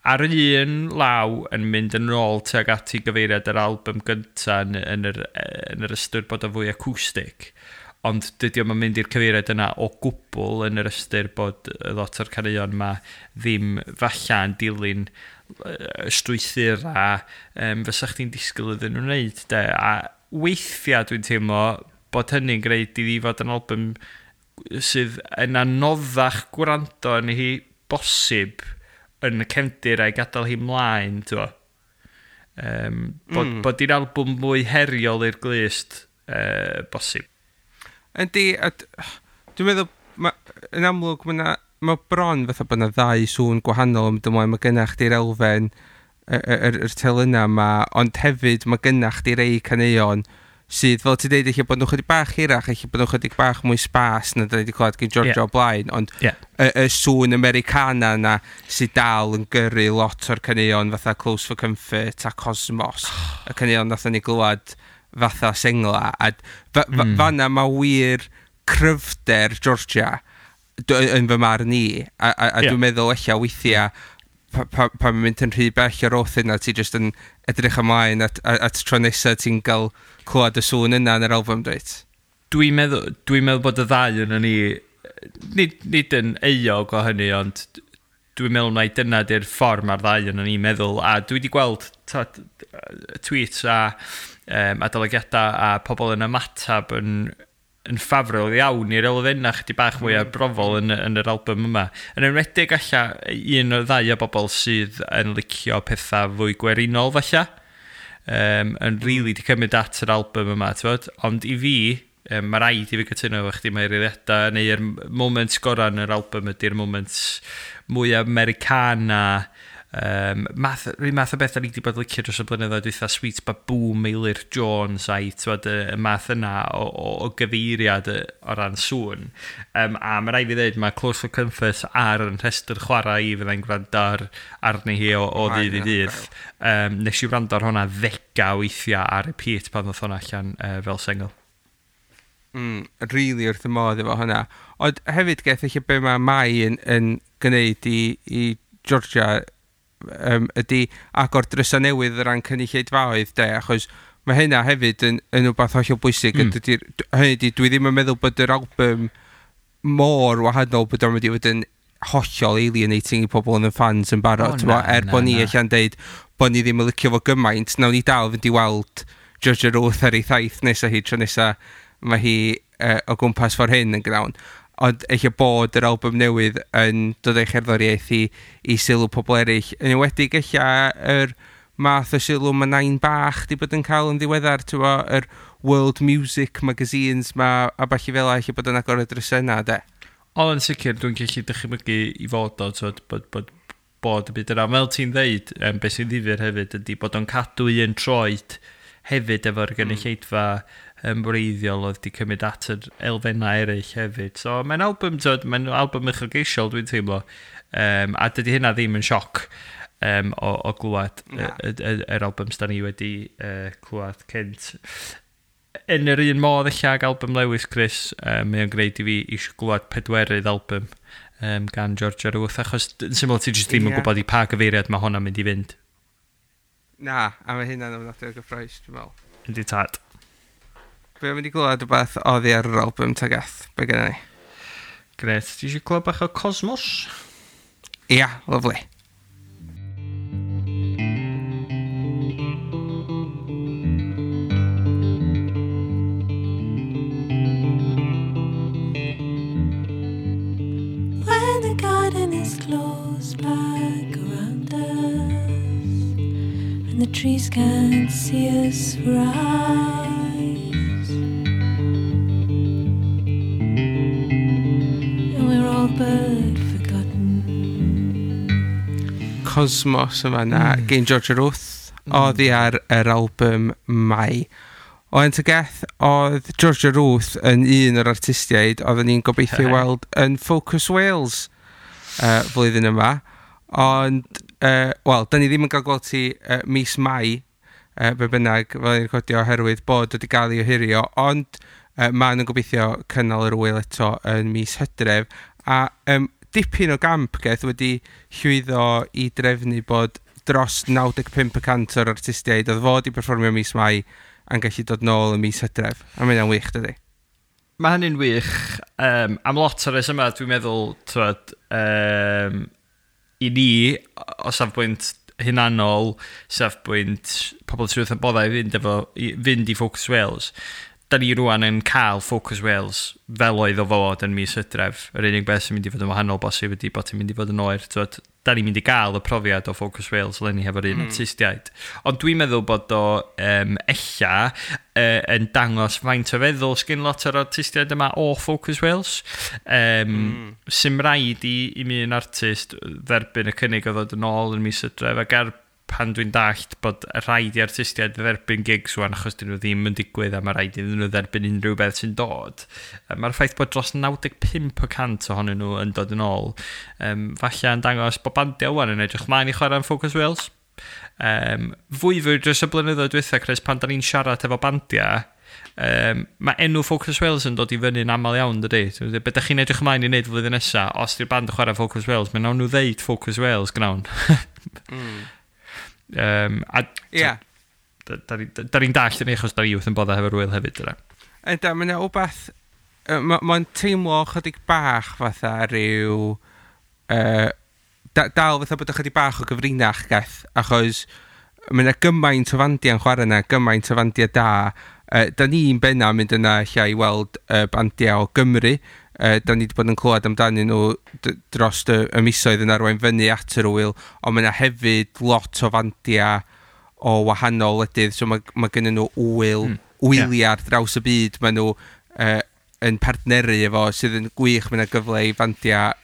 Ar un law yn mynd yn ôl tuag at i gyfeiriad yr album gynta yn yr ystyr bod o fwy acoustic. Ond dydy o'm yn mynd i'r cyfeiriad yna o gwbl, yn yr ystyr bod lot o'r caneuon yma ddim falle yn dilyn y strwythur a fysa chdi'n disgwyl iddyn nhw'n wneud, de. A weithiau dwi'n teimlo bod hynny'n gwneud iddi fod yn album sydd yn anoddach gwrando yn hi bosib yn y cefndir a'i gadael hi mlaen, ti'n bod i'r album mwy heriol i'r glust bosib. Yndi, a dwi'n meddwl, yn amlwg, mae bron fatha bod yna ddau sŵn gwahanol yn mynd ymlaen. Mae gennych chdi'r elfen, yr telynau yma, ond hefyd mae gennych chdi rei caneuon sydd, fel ti'n deud, eich bod nhw chydig bach hirach, eich bod nhw chydig bach mwy spas na da ni wedi clywed gen Georgia o blaen, ond y sŵn Americana yna sydd dal yn gyrru lot o'r caneuon fatha Close for Comfort a Cosmos, y caneuon nathon ni glywed fatha sengla, a fanna mae wir cryfder Georgia yn fy marn i, a dwi'n meddwl ella weithiau pan mae'n mynd yn rhy bell o'r oath yna, ti jyst yn edrych ymlaen at tro nesaf ti'n cael clywed y sŵn yna yn yr album, dweud? Dwi'n meddwl bod y ddau yn ni, nid yn euog o hynny, ond dwi'n meddwl mai dyna di'r ffordd mae'r ddau yn ni'n meddwl, a dwi wedi gweld tweets a adolygiadau a pobl yn ymatab yn ffafrol iawn i'r elfennau chydig bach mwy arbrofol yn yr album yma. Yn enwedig alla un o'r ddau o bobl sydd yn licio pethau fwy gwerinol falle, yn rili di cymryd at yr album yma, t'wod? Ond i fi, mae rhaid i fi cytuno efo chdi, mae'r eiliadau neu'r moment gorau yn yr album ydy'r moment mwy Americana, rhyw math o beth da ni wedi bod licio dros y blynyddoedd dwytha, Sweet Baboon, Meilir Jones a'i, t'wod, y math yna o gyfeiriad o ran sŵn. A mae rhaid fi ddweud, mae Close for Comfort ar yn rhestr chwarae i fyddai'n gwrando arni hi o ddydd i ddydd. Nes i wrando ar hwnna ddegau weithiau ar repeat pan ddoth hwnna allan fel sengl. Really wrth y modd efo hwnna. Ond hefyd geth eich be mae Mai yn gwneud i Georgia ydy agor drysau newydd o ran cynulleidfaoedd, de, achos mae hynna hefyd yn rhywbeth hollol bwysig. Hynny ydy, dwi ddim yn meddwl bod yr album mor wahanol bod o'n mynd i fod yn hollol alienating i pobl yn y fans yn barod. Er bod ni allan deud bod ni ddim yn licio fo gymaint, nawn ni dal fynd i weld Georgia Ruth ar ei thaith nesaf hi, tro nesaf mae hi o gwmpas ffordd hyn yn gnawn. Ond eich bod yr album newydd yn dod o'i cherddoriaeth i sylw pobl eraill. Yn enwedig eich yr math o sylw mae Nain Bach di bod yn cael yn ddiweddar, ti'n bo, yr World Music magazines ma, a ballu fel eich bod yn agor y drysau yna, de. O, yn sicr, dwi'n gallu dychmygu i fod o, t'wod, bod y byd yna. Fel ti'n ddeud, beth sy'n ddifyr hefyd ydy bod o'n cadw un troed hefyd efo'r gynulleidfa wreiddiol oedd wedi cymryd at yr elfennau eraill hefyd. So mae'n album, t'wod, mae'n album uchelgeisiol dwi'n teimlo. A dydy hynna ddim yn sioc o glywed yr albums da ni wedi clywed cynt. Yn yr un modd ella ag album Lewis Chris, mae o'n gwneud i fi eisiau glywed pedwerydd album gan Georgia Ruth, achos yn syml ti jyst ddim yn gwybod i pa gyfeiriad mae hwnna'n mynd i fynd. Na, a mae hynna'n ofnadwy o gyffrous, dwi'n meddwl. Yndi tad. Be am mynd i glywed rhywbeth oddi ar yr album ta gath? Be gynna ni? Gret, ti eisiau clywed bach o Cosmos? Ia, lovely. When the garden is closed back around us and the trees can't see us for eyes, and we're all but forgotten. Cosmos yma na, gen Georgia Ruth, oddi ar yr album Mai. Oen Tygeth, oedd Georgia Ruth yn un o'r artistiaid oedden ni'n gobeithio weld yn Focus Wales flwyddyn yma. Ond, wel, da ni ddim yn cael gweld ti mis Mai, be bynnag, fel ni'n recordio, oherwydd bod wedi cael ei ohirio, ond maen nhw'n gobeithio cynnal yr ŵyl eto yn mis Hydref. A dipyn o gamp geth wedi llwyddo i drefnu bod dros 95% o'r artistiaid oedd fod i perfformio mis Mai yn gallu dod nôl yn mis Hydref. A mae hynna'n wych, dydy? Mae hynny'n wych. Am lot o'r resymau, dwi'n meddwl, twod, i ni, o safbwynt hunanol, safbwynt pobl sydd wrth y boddau i fynd i Focus Wales, da ni rwan yn cael Focus Wales fel oedd o fod yn mis Hydref. Yr unig beth sy'n mynd i fod yn wahanol bosib ydy bod hi'n mynd i fod yn oer. Twod, da ni'n mynd i gael y profiad o Focus Wales eleni hefo'r un artistiaid. Ond dwi'n meddwl bod o ella yn dangos faint o feddwl sgyn lot o'r artistiaid yma o Focus Wales. Sy'm rhaid i mi un artist dderbyn y cynnig o ddod yn ôl yn mis Hydref, ac ar pan dwi'n dallt bod rhaid i artistiaid dderbyn gigs wan achos dyn nhw ddim yn digwydd a mae rhaid iddyn nhw dderbyn unrhyw beth sy'n dod. Mae'r ffaith bod dros 95% ohonyn nhw yn dod yn ôl, falle yn dangos bod bandiau wan yn edrych mlaen i chwarae yn Focus Wales. Fwy fwy dros y blynyddoedd dwytha, Chris, pan da ni'n siarad efo bandiau, mae enw Focus Wales yn dod i fyny'n aml iawn, dydy? Be da chi'n edrych ymlaen i wneud flwyddyn nesaf, os di'r band yn chwarae Focus Wales, mae nawn nhw ddeud Focus Wales gnawn. A da ni'n dallt yn achos da ni wrth yn boddau hefo'r wyl hefyd, dyna. Ynda, mae yna wbath. Mae'n teimlo chydig bach fatha rhyw dal fatha bod ychydig bach o gyfrinach gath, achos mae yna gymaint o fandiau'n chwarae yna, gymaint o fandiau da. Da ni'n benna mynd yna lle i weld bandiau o Gymru. Da ni wedi bod yn clywed amdanyn nhw dros y misoedd yn arwain fyny at yr wyl, ond mae yna hefyd lot o fandiau o wahanol wledydd, so mae gennyn nhw wyl, wyliau ar draws y byd, mae nhw yn partneru efo, sydd yn gwych. Mae yna gyfle i fandiau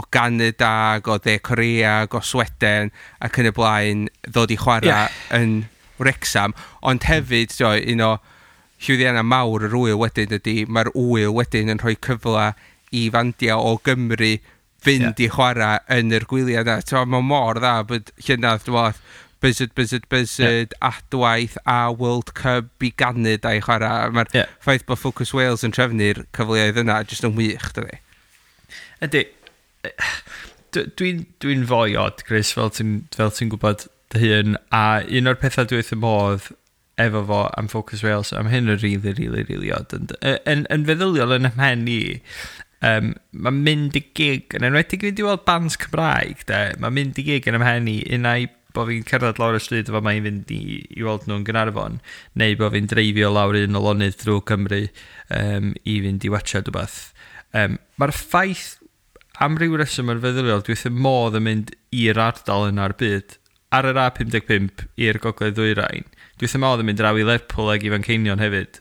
o Canada, ac o De Korea, ac o Sweden, ac yn y blaen, ddod i chwarae yn Wrexham. Ond hefyd, tio, un o llwyddiannau mawr yr wyl wedyn ydy, mae'r wyl wedyn yn rhoi cyfle i fandiau o Gymru fynd i chwarae yn yr gwyliau yna. Tio, mae mor dda bod llynedd, dwi'n meddwl, Buzzard, Buzzard, Buzzard, Adwaith a World Cup i Ganada i chwarae. Mae'r ffaith bod Focus Wales yn trefnu'r cyfleoedd yna jyst yn wych, dydy. Ydy, dwi'n foi od, Chris, fel ti gwybod dy hun, a un o'r pethau dwi wrth y modd efo fo am Focus Wales, am hyn yn really, really, really odd. Yn feddyliol yn 'y mhen i, mae'n mynd i gig, yn enwedig fynd i weld bands Cymraeg, de, mae'n mynd i gig yn 'y mhen i, unai bod fi'n cerdded lawr y stryd efo mae'n fynd i weld nhw'n Gaernarfon, neu bod fi'n dreifio lawr un o lonydd drwy Cymru i fynd i watchad rhywbeth. Mae'r ffaith am ryw reswm yn feddyliol, dwi wrth y modd yn mynd i'r ardal yna o'r byd, ar yr A55 i'r Gogledd Ddwyrain. Dwi wrth y modd yn mynd draw i Lerpwl ag i Fanceinion hefyd.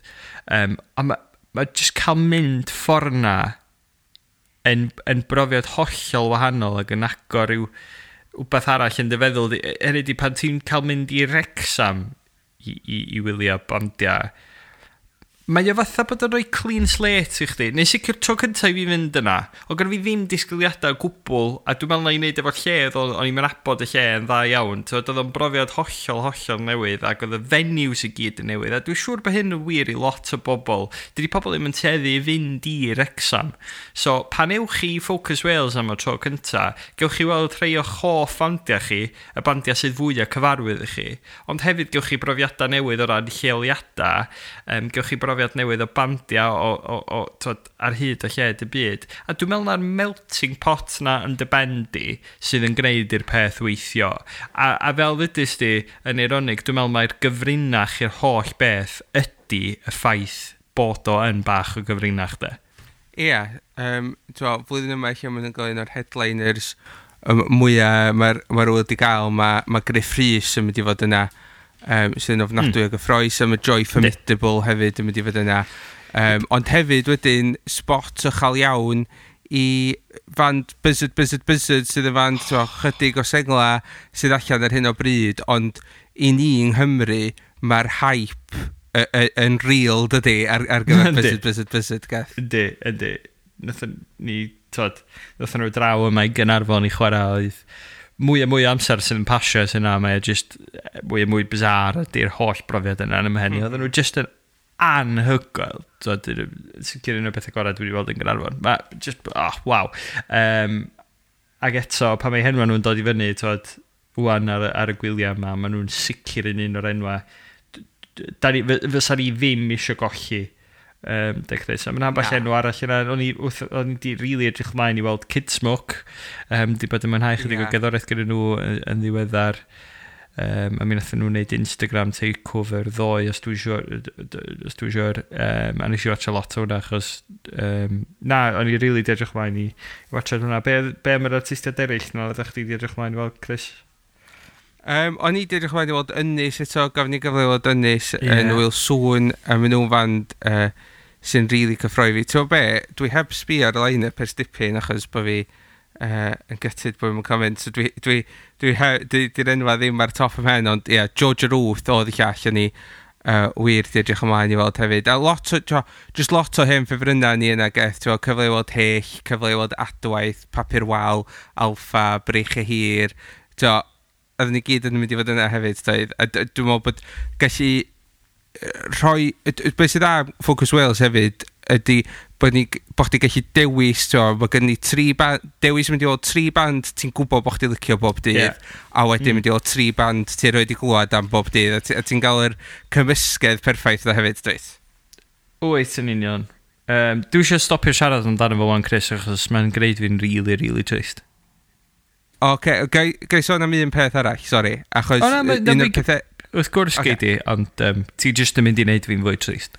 A ma just cael mynd ffordd na yn brofiad hollol wahanol ac yn agor rhyw wbeth arall yn dy feddwl di. Hynny di, pan ti'n cael mynd i Wrexham i wylio bandiau, mae o fatha bod yn rhoi clean slate i chdi. Neu sicr tro cyntaf i fi fynd yna, o gyda fi ddim disgwyliadau o gwbl, a dwi'n meddwl na i wneud efo'r lle, o'n i'n nabod y lle yn dda iawn. T'wod, oedd o'n brofiad hollol, hollol newydd, ac oedd y venues i gyd yn newydd. A dwi'n siŵr bod hyn yn wir i lot o bobl. Dydy pobl ddim yn tueddu i fynd i Wrexham. So, pan ewch chi i Focus Wales am y tro cynta, gewch chi weld rhai o'ch hoff bandiau chi, y bandiau sydd fwyaf cyfarwydd i chi. Ond hefyd gewch chi brofiadau newydd o ran lleoliadau, gewch chi brofiad newydd o bandiau o t'wod, ar hyd a lled y byd. A dwi'n meddwl na'r melting pot na yn dy ben di sydd yn gwneud i'r peth weithio. A fel ddudis di, yn eironig, dwi'n meddwl mai'r gyfrinach i'r holl beth ydy y ffaith bod o yn bach o gyfrinach, de. Ie, flwyddyn yma lle maen nhw'n gael un o'r headliners mwyaf mae'r wyl wedi gael, mae Gruff Rhys yn mynd i fod yna, sydd yn ofnadwy o gyffrous, a mae Joy Formidable hefyd yn mynd i fod yna. Ond hefyd wedyn, spot uchel iawn i fand Buzzard, Buzzard, Buzzard, sydd yn fand t'mo, chydig o sengla sydd allan ar hyn o bryd, ond i ni yng Nghymru, mae'r hype yn real, dydy, ar gyfer Buzzard, Buzzard, Buzzard, gath. Yndi. Nathon ni, t'wod, nathon nhw draw yma i Gaernarfon i chwarae, oedd mwy a mwy o amser sydd yn pasio sy'n yna, mae o just mwy a mwy bizarre ydy'r holl brofiad yna yn 'y mhen i. Oedden nhw just yn anhygoel. T'wod, sicr un o'r pethau gorau dwi wedi weld yn Gaernarfon. Ma, just, oh, waw. Ac eto, pan mae henwa nhw'n dod i fyny, t'wod, wan ar y gwyliau yma, maen nhw'n sicr yn un o'r enwa. Fysa ni ddim eisiau golli De Chris. A mae'n ambell enw arall yna. O'n i di really edrych mlaen i weld Kid Smoke. Di bod yn mwynhau chydig o gerddoriaeth gyda nhw yn ddiweddar. A mi nathon nhw wneud Instagram takeover ddoe, os dwi'n siŵr. A nes i watcha lot o hwnna, achos na, o'n i really di edrych mlaen i watcha hwnna. Be am yr artistiaid eraill na oeddech chdi di edrych mlaen i weld, Chris? O'n i di edrych mlaen i weld Ynys eto, gafon ni gyfle i weld Ynys yn Wyl Sŵn, a maen nhw'n fand sy'n really cyffroi fi. Ti'n be, dwi heb sbio ar y line-up ers dipyn achos bod fi yn gutted bod fi'n cael mynd. So di'r enwa ddim ar top ym mhen, ond ie, yeah, Georgia Ruth oedd y llall yn i wir di edrych ymlaen i weld hefyd. A lot o, just lot o hen ffefrynnau ni yna, Geth, ti'n cyfle i weld Hyll, cyfle i weld Adwaith, Papur Wal, Alffa, Breichiau Hir, ti'n oedden ni gyd yn mynd i fod yna hefyd, doedd. A dwi'n meddwl bod gallu rhoi, beth sydd dda Focus Wales hefyd ydy bod chdi gallu dewis, ti'n mae gen ni tri band, dewis mynd i weld tri band ti'n gwybod bod chdi licio bob dydd, a wedyn mynd i weld tri band ti'n rhoi di glwad am bob dydd, a ti'n gael yr cymysgedd perffaith yna hefyd, dweud? Wyt, yn union. Dwi eisiau stopio siarad amdano fo wan, Chris, achos mae'n gwneud fi'n really, really trist. Oce, gai sôn am un peth arall, sori, achos un o'r pethau... Wrth gwrs gei di, ond ti jyst yn mynd i wneud fi'n fwy trist.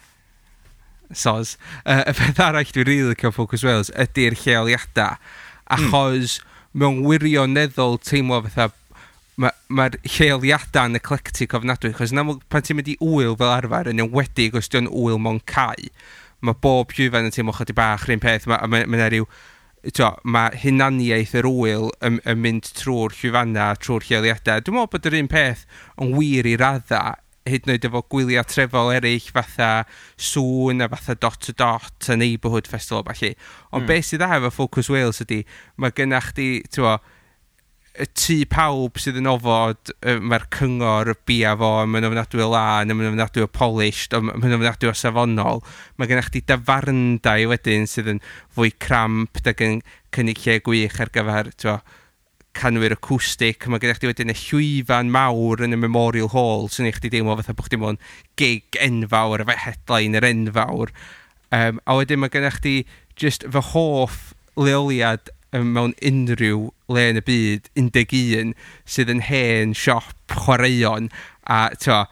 Soz. Y peth arall dwi'n rili licio Focus Wales ydy'r lleoliadau, achos mewn wirioneddol teimlo fatha mae'r lleoliadau yn eclectic ofnadwy, achos yn amlwg pan ti'n mynd i wyl fel arfer, yn enwedig os di'n wyl mewn cae, mae bob llwyfan yn teimlo chydig bach rhywun peth, mae rhyw, mae hunaniaeth yr wyl yn mynd trwy'r llwyfannau, trwy'r lleoliadau. Dwi'n meddwl bod yr un peth yn wir i radda, hyd yn oed efo gwyliau trefol eraill fatha Sŵn a fatha Dot to Dot a Neighbourhood Festival falle. Ond beth sydd dda efo Focus Wales ydy, mae gennych chdi, ti'n y tŷ pawb sydd yn ofod, mae'r cyngor bia fo, mae'n ofnadwy o lân, mae'n ofnadwy o polished, mae'n ofnadwy o safonol. Mae gennych chdi dafarndai wedyn sydd yn fwy cramp ac yn cynnig lle gwych ar gyfer, ti'n canwyr acoustic. Mae gennych chdi wedyn y llwyfan mawr yn y Memorial Hall sy'n ei chdi deimlo fatha bod chdi mewn gig enfawr efo headliner enfawr. A wedyn mae gennych chdi just fy hoff leoliad mewn unrhyw le yn y byd, 11, sydd yn hen siop chwaraeon a t'o,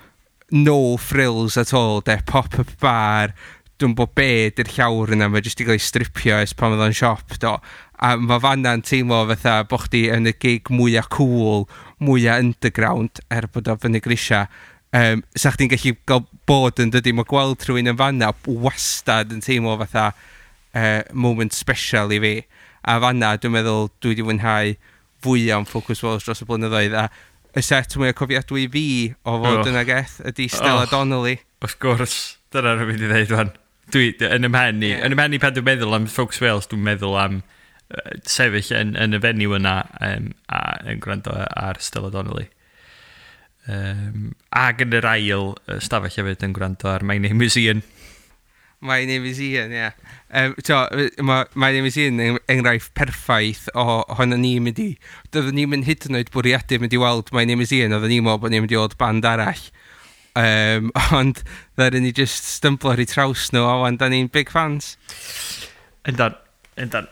no frills at all, de, pop-up bar, dwi'n bod be di'r llawr yna, mae jyst i gael ei stripio ers pan oedd o'n siop, do. A mae fanna'n teimlo fatha bo chdi yn y gig mwyaf cool, mwyaf underground, er bod o fyny grisia. Sa chdi'n gallu gael bod yn dydy, mae gweld rhywun yn fanna wastad yn teimlo fatha moment special i fi. A fanna, dwi'n meddwl, dwi wedi fwynhau fwyaf am Focus Wales dros y blynyddoedd. A y set mwyaf cofiadwy fi o fod yna, Geth, ydy Stella Donnelly. Wrth gwrs, dyna rwy'n mynd i ddeud wan. Dwi, yn ym mhen i, yn ym mhen i pan dwi'n meddwl am Focus Wales, dwi'n meddwl am sefyll yn y venue yna a yn gwrando ar Stella Donnelly. Ac yn yr ail stafell hefyd yn gwrando ar My Name Is Ian. My Name Is Ian, ie. My Name Is Ian yn enghraifft perffaith o honno ni'n mynd i... Doeddwn ni'n mynd hyd yn oed bwriadu mynd i weld My Name Is Ian, oedden ni'n meddwl bod ni'n mynd i weld band arall. Ond ddaru ni just stymblo ar eu traws nhw, a wan da ni'n big fans. Yndan, yndan.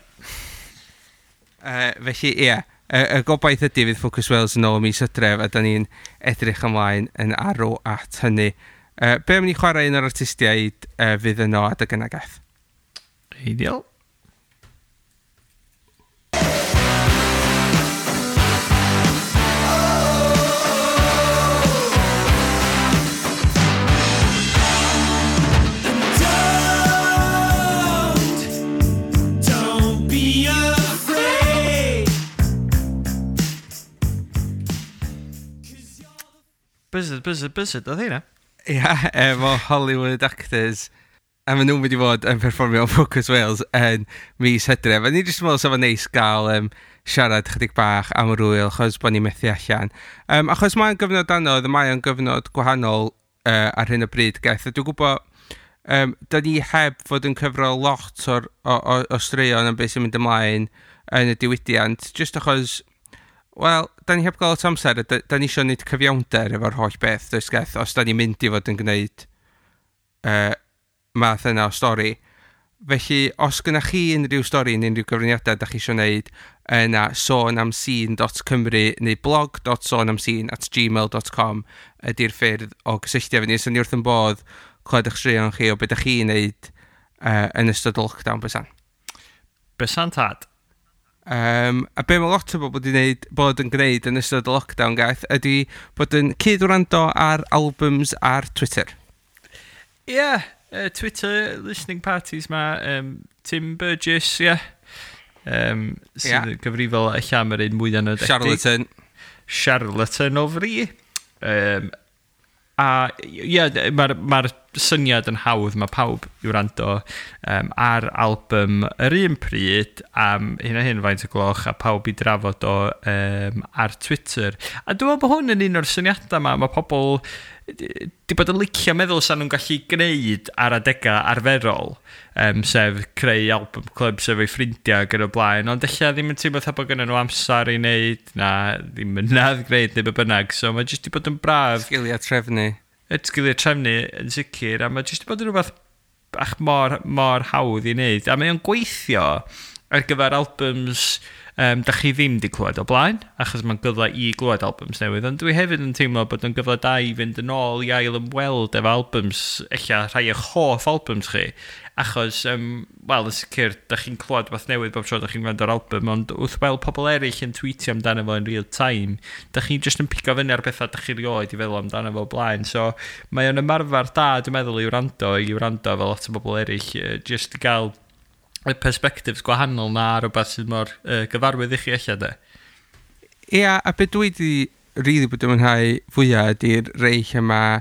Felly, ie. Y gobaith ydy fydd Focus Wales yn ôl mis Hydref, a da ni'n edrych ymlaen yn arw at hynny. Be am ni chwarae un o'r artistiaid fydd yno adeg yna, Geth? Ideal. Don't be afraid. Buzzard, buzzard, buzzard, oedd hynna? Ia, efo Hollywood Actors. A maen nhw'n mynd i fod yn perfformio Focus Wales yn mis Hydref. A ni jyst yn meddwl sef o'n neis gael siarad chydig bach am yr wyl, achos bod ni'n methu allan. Achos mae'n gyfnod anodd, mae o'n gyfnod gwahanol ar hyn o bryd, Geth. A dwi'n gwybod, da ni heb fod yn cyfro lot o straeon am beth sy'n mynd ymlaen yn y diwydiant, jyst achos, wel, da ni heb gael lot o amser, da ni eisiau gwneud cyfiawnder efo'r holl beth, does Geth, os da ni'n mynd i fod yn gwneud math yna o stori. Felly, os gynnach chi unrhyw stori neu unrhyw gyfraniadau da chi eisiau gwneud, yna sonamscene.cymru neu blog.sonamscene@gmail.com ydy'r ffyrdd o gysylltu efo ni. So ni wrth yn bodd clywed eich straeon chi o beth ydych chi'n neud yn ystod y lockdown, bysan. Bysan tad. A be mae lot o bobl wedi wneud, bod yn gwneud yn ystod y lockdown, gath, ydy bod yn cyd-wrando ar albums ar Twitter. Ie, yeah, Twitter listening parties ma, Tim Burgess, ie. Yeah. Sydd yn gyfrifol eich am yr un mwyaf nodedig. Charlatan. Charlatan o fri. A ie, yeah, mae'r ma syniad yn hawdd, mae pawb i wrando ar album yr un pryd am hyn a hyn faint o gloch a pawb i drafod o ar Twitter. A dwi'n meddwl bod hwn yn un o'r syniadau yma, mae pobl di bod yn licio meddwl sa'n nhw'n gallu gwneud ar adegau arferol, sef creu album club sef eu ffrindiau ac yn y blaen, ond ella ddim yn teimlo fatha bod gynnon nhw amser i wneud, na ddim ynadd gwneud neu be bynnag, so mae jyst di bod yn braf. Sgiliau trefnu. Y sgiliau trefnu yn sicr, a mae jyst di bod yn rhywbeth bach mor, mor hawdd i wneud, a mae o'n gweithio ar gyfer albums da chi ddim di clywed o blaen, achos mae'n gyfle i glywed albums newydd, ond dwi hefyd yn teimlo bod yn gyfle da i fynd yn ôl i ail ymweld efo albums, ella rhai eich hoff albums chi, achos, wel, yn sicr, da chi'n clywed beth newydd bob tro da chi'n gwrando ar album, ond wrth weld pobl eraill yn tweetio amdano fo in real time, da chi'n just yn pigo fyny ar bethau da chi rioed i feddwl amdano fo o blaen, so mae o'n ymarfer da, dwi'n meddwl, i wrando fel lot o bobl eraill, just i gael y perspectives gwahanol na rhywbeth sydd mor gyfarwydd i chi ella, de. Ia, a be dwi di really bod yn mwynhau fwyaf ydy'r rei lle mae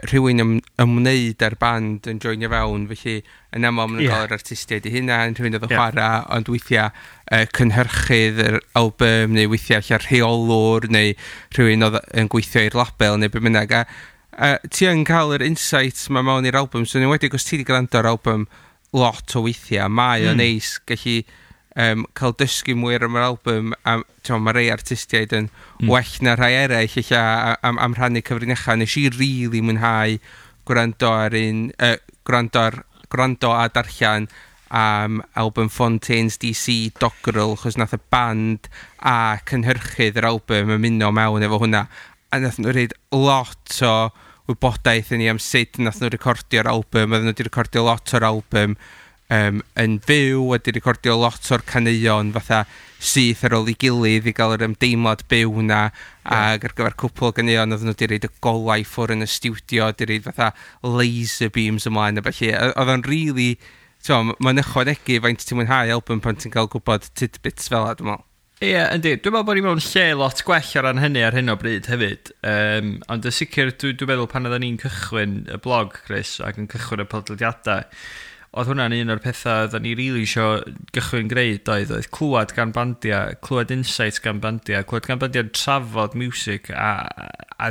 rhywun ymwneud â'r band yn joinio fewn, felly yn aml maen nhw'n cael yr artistiaid eu hunain, rhywun oedd yn chwarae, ond weithiau cynhyrchydd yr album, neu weithiau lle rheolwr, neu rhywun oedd yn gweithio i'r label, neu be bynnag. A ti yn cael yr insights ma mewn i'r album, so yn enwedig os ti wedi gwrando ar album lot o weithiau, mae o'n neis gallu cael dysgu mwy ar yr album, a t'mo, mae rei artistiaid yn well na rhai eraill ella am rhannu cyfrinachau. Nes i really mwynhau gwrando ar un, gwrando a darllen am album Fontaines DC Dogrel, chos nath y band a cynhyrchydd yr album ymuno mewn efo hwnna. A nath nhw reid lot o wybodaeth i ni am sut nath nhw recordio'r album. Oedden nhw wedi recordio lot o'r album yn fyw, wedi recordio lot o'r caneuon fatha syth ar ôl ei gilydd i gael yr ymdeimlad byw na, ac ar gyfer cwpl o ganeuon oedden nhw wedi reid y golau ffwr yn y stiwdio, wedi reid fatha laser beams ymlaen a felly. Oedd o'n really, mae'n ychwanegu faint ti'n mwynhau album pan ti'n cael gwybod tidbits fel 'a, dwi'n meddwl. Ie, yeah, yndi. Dwi'n meddwl bod ni mewn lle lot gwell o ran hynny ar hyn o bryd hefyd. Ond yn sicr, dwi meddwl pan oedden ni'n cychwyn y blog, Chris, ac yn cychwyn y podlediadau, oedd hwnna'n un o'r pethau oedden ni rili isio gychwyn gwneud oedd clywed gan bandiau, clywed insights gan bandiau, clywed gan bandiau'n trafod music a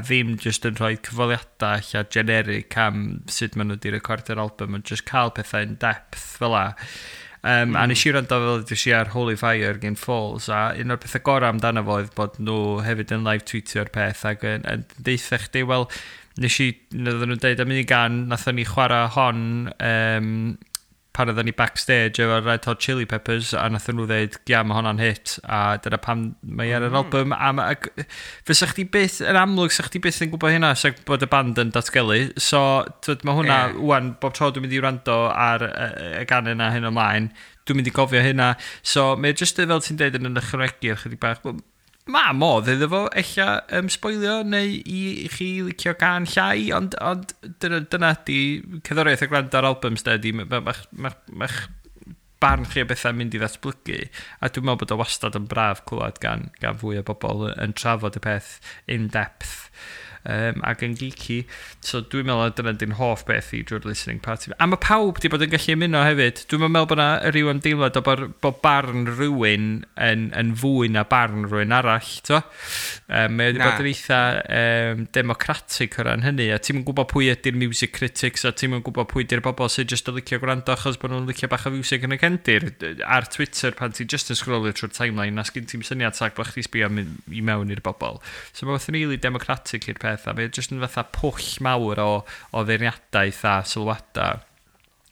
ddim just yn rhoi cyfweliadau ella generic am sut maen nhw wedi recordio'r album, ond just cael pethau in depth fel 'a. A nes i wrando, fel ydych chi, ar Holy Fire gen Falls, a un o'r pethau gorau amdano fo oedd bod nhw hefyd yn live tweetio'r peth ac yn deutha chdi, wel, nes i, oedden nhw'n deud am un gan, nathon ni chwarae hon pan oedden ni backstage efo Red Hot Chili Peppers a nathon nhw ddeud, "Ia, mae honna'n hit," a dyna pam mae ar yr album. A ac fysa chdi byth, yn amlwg, sa chdi byth yn gwybod hynna sa bod y band yn datgelu. So twyd, mae hwnna wan, bob tro dwi'n mynd i wrando ar y gan yna hyn ymlaen, dwi'n mynd i gofio hynna. So mae jyst fel ti'n deud yn ychwanegu ar chydig bach. Wel, mae modd iddo fo ella sboilio neu i chi licio gan llai, ond dyna di cerddoriaeth a gwrando ar albums de, di mae'ch ma, ma, ma barn chi o bethau'n mynd i ddatblygu, a dwi'n meddwl bod o wastad yn braf clywed gan fwy o bobl yn trafod y peth in depth ac yn geeky. So dwi'n meddwl dyna di'n hoff beth i drwy'r listening party. A mae pawb di bod yn gallu ymuno hefyd. Dwi'n meddwl bod yna rhyw ymdeimlad o bod barn rhywun yn fwy na barn rhywun arall. To? Mae wedi bod yn eitha democratic o ran hynny. A ti'n gwybod pwy ydy'r music critics a ti'n gwybod pwy ydy'r bobl sydd jyst yn licio gwrando achos bod nhw'n licio bach o music yn y cefndir. Ar Twitter, pan ti'n just yn scrollio trwy'r timeline, na sgyn ti'n syniad sac bod chdi sbio i mewn i'r bobl. So mae'n fath yn really democratic i'r peth, a mae'n just yn fatha pwll mawr o feirniadaeth a sylwadau.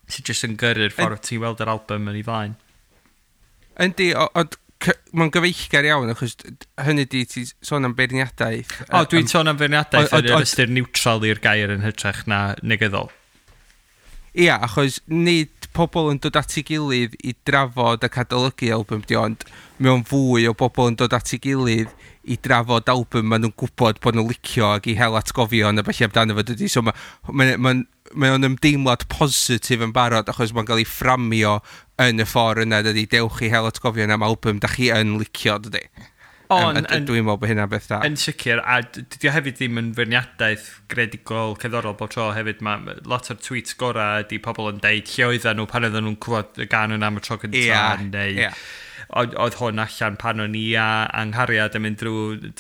Sy'n jyst yn gyrru'r ffordd ti'n weld yr album yn ei flaen. Yndi, ond mae'n gyfeillgar iawn, achos hynny di ti sôn am beirniadaeth. O, dwi'n sôn am beirniadaeth yn yr ystyr neutral i'r gair yn hytrach na negyddol. Ia, achos nid pobl yn dod at ei gilydd i drafod ac adolygu album di, ond mewn fwy o bobl yn dod at ei gilydd i drafod album maen nhw'n gwybod bod nhw'n licio ac i hel atgofion a felly amdano fo dydy. So mae o'n ymdeimlad positif yn barod achos mae'n cael ei fframio yn y ffordd yna dydy. Dewch i hel atgofion am album da chi yn licio dydy. Dwi'n meddwl bod hynna'n beth da. Yn sicr, a dydy o hefyd ddim yn feirniadaeth greadigol cerddorol bob tro hefyd. Mae lot o'r tweets gorau ydy pobl yn deud lle oedden nhw pan oedden nhw'n clywed y gân yna am y tro cyntaf, neu oedd hwn allan pan o'n i a anghariad yn mynd drwy,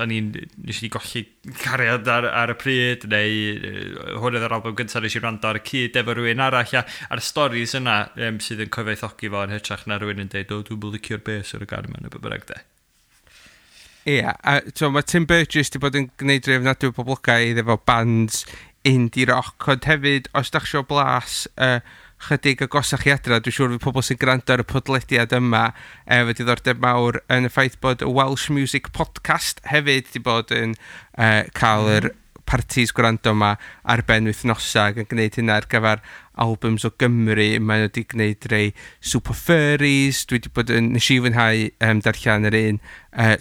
o'n i'n, nes i golli cariad ar y pryd, neu hwn oedd yr album gyntaf nes i wrando ar y cyd efo rhywun arall, a'r stories yna sydd yn cyfoethogi fo yn hytrach na rhywun yn deud, "O, dwi'n licio'r bass ar y gân yma," neu be bynnag de. Ia, a so, mae Tim Burgess wedi bod yn gwneud rhai ofnadwy o poblogaidd efo bands indie rock, ond hefyd, os da chi isio blas chydig agosach i adra, dwi'n siŵr fydd pobl sy'n gwrando ar y podlediad yma efo diddordeb mawr yn y ffaith bod y Welsh Music Podcast hefyd wedi bod yn cael yr parties gwrando yma ar ben wythnosau ac yn gwneud hynna ar gyfer albums o Gymru. Maen nhw wedi gwneud rei Super Furries, dwi wedi bod yn, nes i fwynhau darllen yr un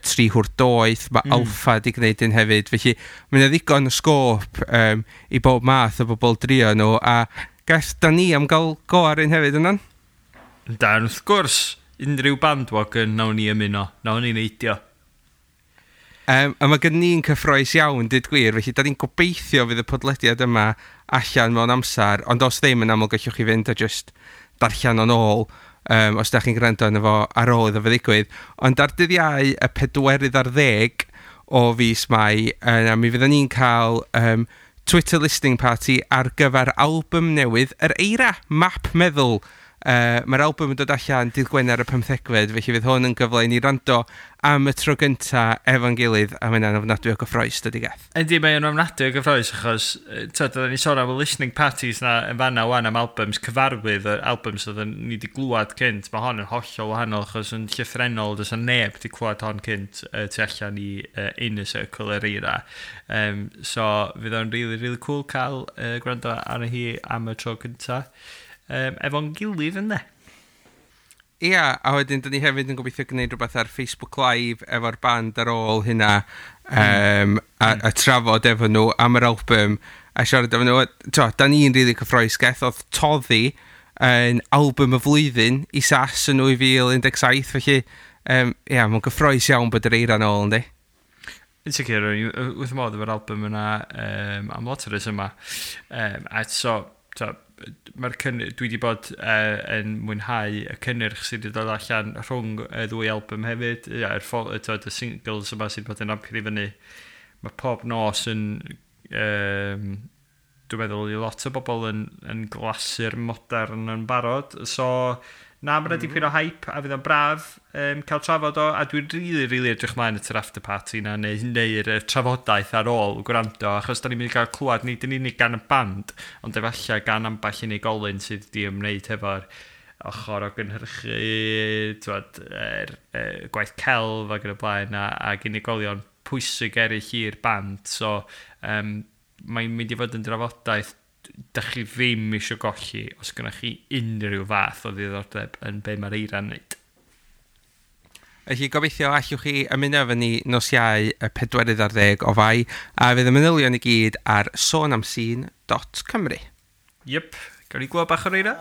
Tri Hwr Doeth, mae Alffa wedi gwneud un hefyd, felly mae yna ddigon o sgôp i bob math o bobl drio nhw, a gall da ni am gael go ar un hefyd yna'n? Dan, wrth gwrs, unrhyw bandwagon nawn ni ymuno, nawn ni neidio. A mae gen ni'n cyffroes iawn, dweud gwir, felly da ni'n gobeithio fydd y podlediad yma allan mewn amser, ond os ddim, yn aml gallwch chi fynd a just darllen o'n ôl, os da chi'n gwrando arno fo ar ôl iddo fe ddigwydd. Ond ar dydd Iau, y 24 o fis Mai, yna mi fydden ni'n cael Twitter listening party ar gyfer album newydd Yr Eira, Map Meddwl. Mae'r album yn dod allan dydd Gwener y 15fed, felly fydd hwn yn gyfle i ni rando am y tro gynta efo'n gilydd, a mae'n ofnadwy o gyffroes, dydy, Geth? Yndi, mae'n ofnadwy o gyffroes, achos tyd, oedden ni sôn am y listening parties na yn fanna wan am albums cyfarwydd, yr albums oedden ni wedi glwad cynt. Mae hon yn hollol wahanol, achos yn llythrennol, does 'na neb wedi clywed hon cynt tu allan i Inner Circle Yr Eira. So, fydd o'n really, really cool cael gwrando arno hi am y tro cynta efo'n gilydd yna. Ia, a wedyn dyn ni hefyd yn gobeithio gwneud rhywbeth ar Facebook Live efo'r band ar ôl hynna a trafod efo nhw am yr album a siarad efo nhw. To, da ni'n rili cyffroes, Geth, oedd Toddi yn album y flwyddyn i SAS yn 2017, felly ia, mae'n gyffroes iawn bod Yr Eira'n ôl, yndi? Yn sicr, o'n i wrth modd efo'r album yna am lot o yma. A so dwi wedi bod yn mwynhau y cynnyrch sydd wedi dod allan rhwng y ddwy album hefyd. Ia, twod, y singles yma sydd wedi bod yn rampio i fyny. Mae pob nos yn, dwi'n meddwl, i lot o bobl yn glasur modern yn barod. So, na, mae'n dipyn o hype a fydd o'n braf cael trafod o, a dwi'n really, really edrych mlaen at yr after party na, neu'r trafodaeth ar ôl gwrando, achos da ni'n mynd i gael clywed nid yn unig gan y band, ond efallai gan ambell unigolyn sydd wedi ymwneud hefo'r ochr o gynhyrchu, t'wod, gwaith celf ac yn y blaen, ac unigolion pwysig eraill i'r band. So, mae'n mynd i fod yn drafodaeth dach chi ddim eisiau golli os gynnwch chi unrhyw fath o ddiddordeb yn be mae'r Eira'n wneud. Felly gobeithio allwch chi ymuno efo ni nos Iau y 24 o Fai, a fydd y manylion i gyd ar sonamscene.cymru. Yep, gawn ni glywed bach o'r Eira?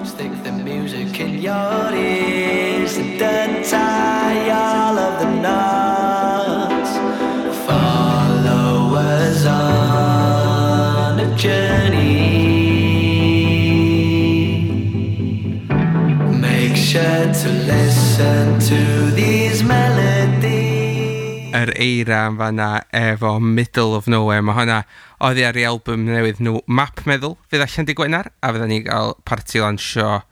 Stick the music in your ears and untie all of the knots. Follow us on a journey. Make sure to listen to these melodies. Yr Eira yn fanna efo Middle of Nowhere. Mae hwnna oddi ar ei album newydd nhw, Map Meddwl, fydd allan dydd Gwener, a fydda ni gael parti lansio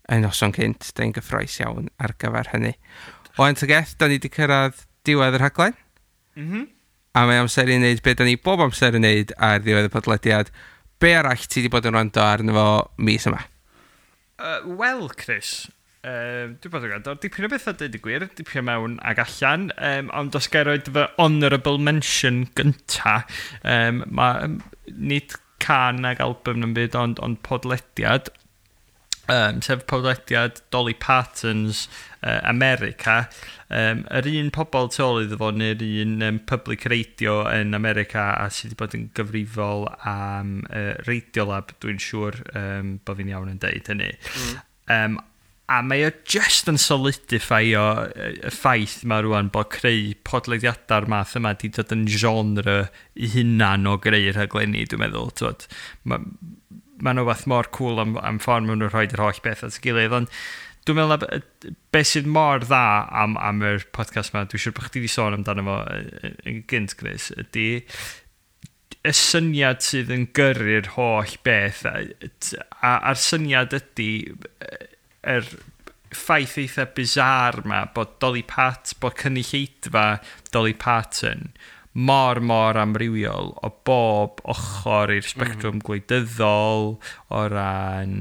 y noson cynt. Da ni'n gyffroes iawn ar gyfer hynny. O ta Geth, da ni wedi cyrraedd diwedd y rhaglen. A mae amser i wneud beth da ni bob amser yn wneud ar ddiwedd y podlediad. Be arall ti wedi bod yn rando arno fo mis yma? Wel, Chris, dwi'n bod yn gwrando dipyn o bethau, dweud y gwir, dipyn mewn ag allan, ond os gael roed fy honourable mention gynta, ma, nid can ag album yn byd, ond podlediad, sef podlediad Dolly Parton's America. Yr un pobl tu ôl iddo fo neu'r un public radio yn America a sydd wedi bod yn gyfrifol am Radiolab, dwi'n siŵr bod fi'n iawn yn deud hynny. A mae o just yn solidify-o y ffaith ma rwan bod creu podlediadau'r math yma di dod yn genre i hunan o greu rhaglenni, dwi'n meddwl. T'wod, ma nhw fath mor cool am ffordd maen nhw'n rhoi yr holl beth at ei gilydd, ond dwi'n meddwl na beth sydd mor dda am yr podcast yma, dwi'n siŵr bod chdi wedi sôn amdano fo yn gynt, Chris, ydy y syniad sydd yn gyrru'r holl beth, a'r syniad ydy yr ffaith eitha bizarre ma bod cynulleidfa Dolly Parton mor, mor amrywiol o bob ochr i'r sbectrwm gwleidyddol, o ran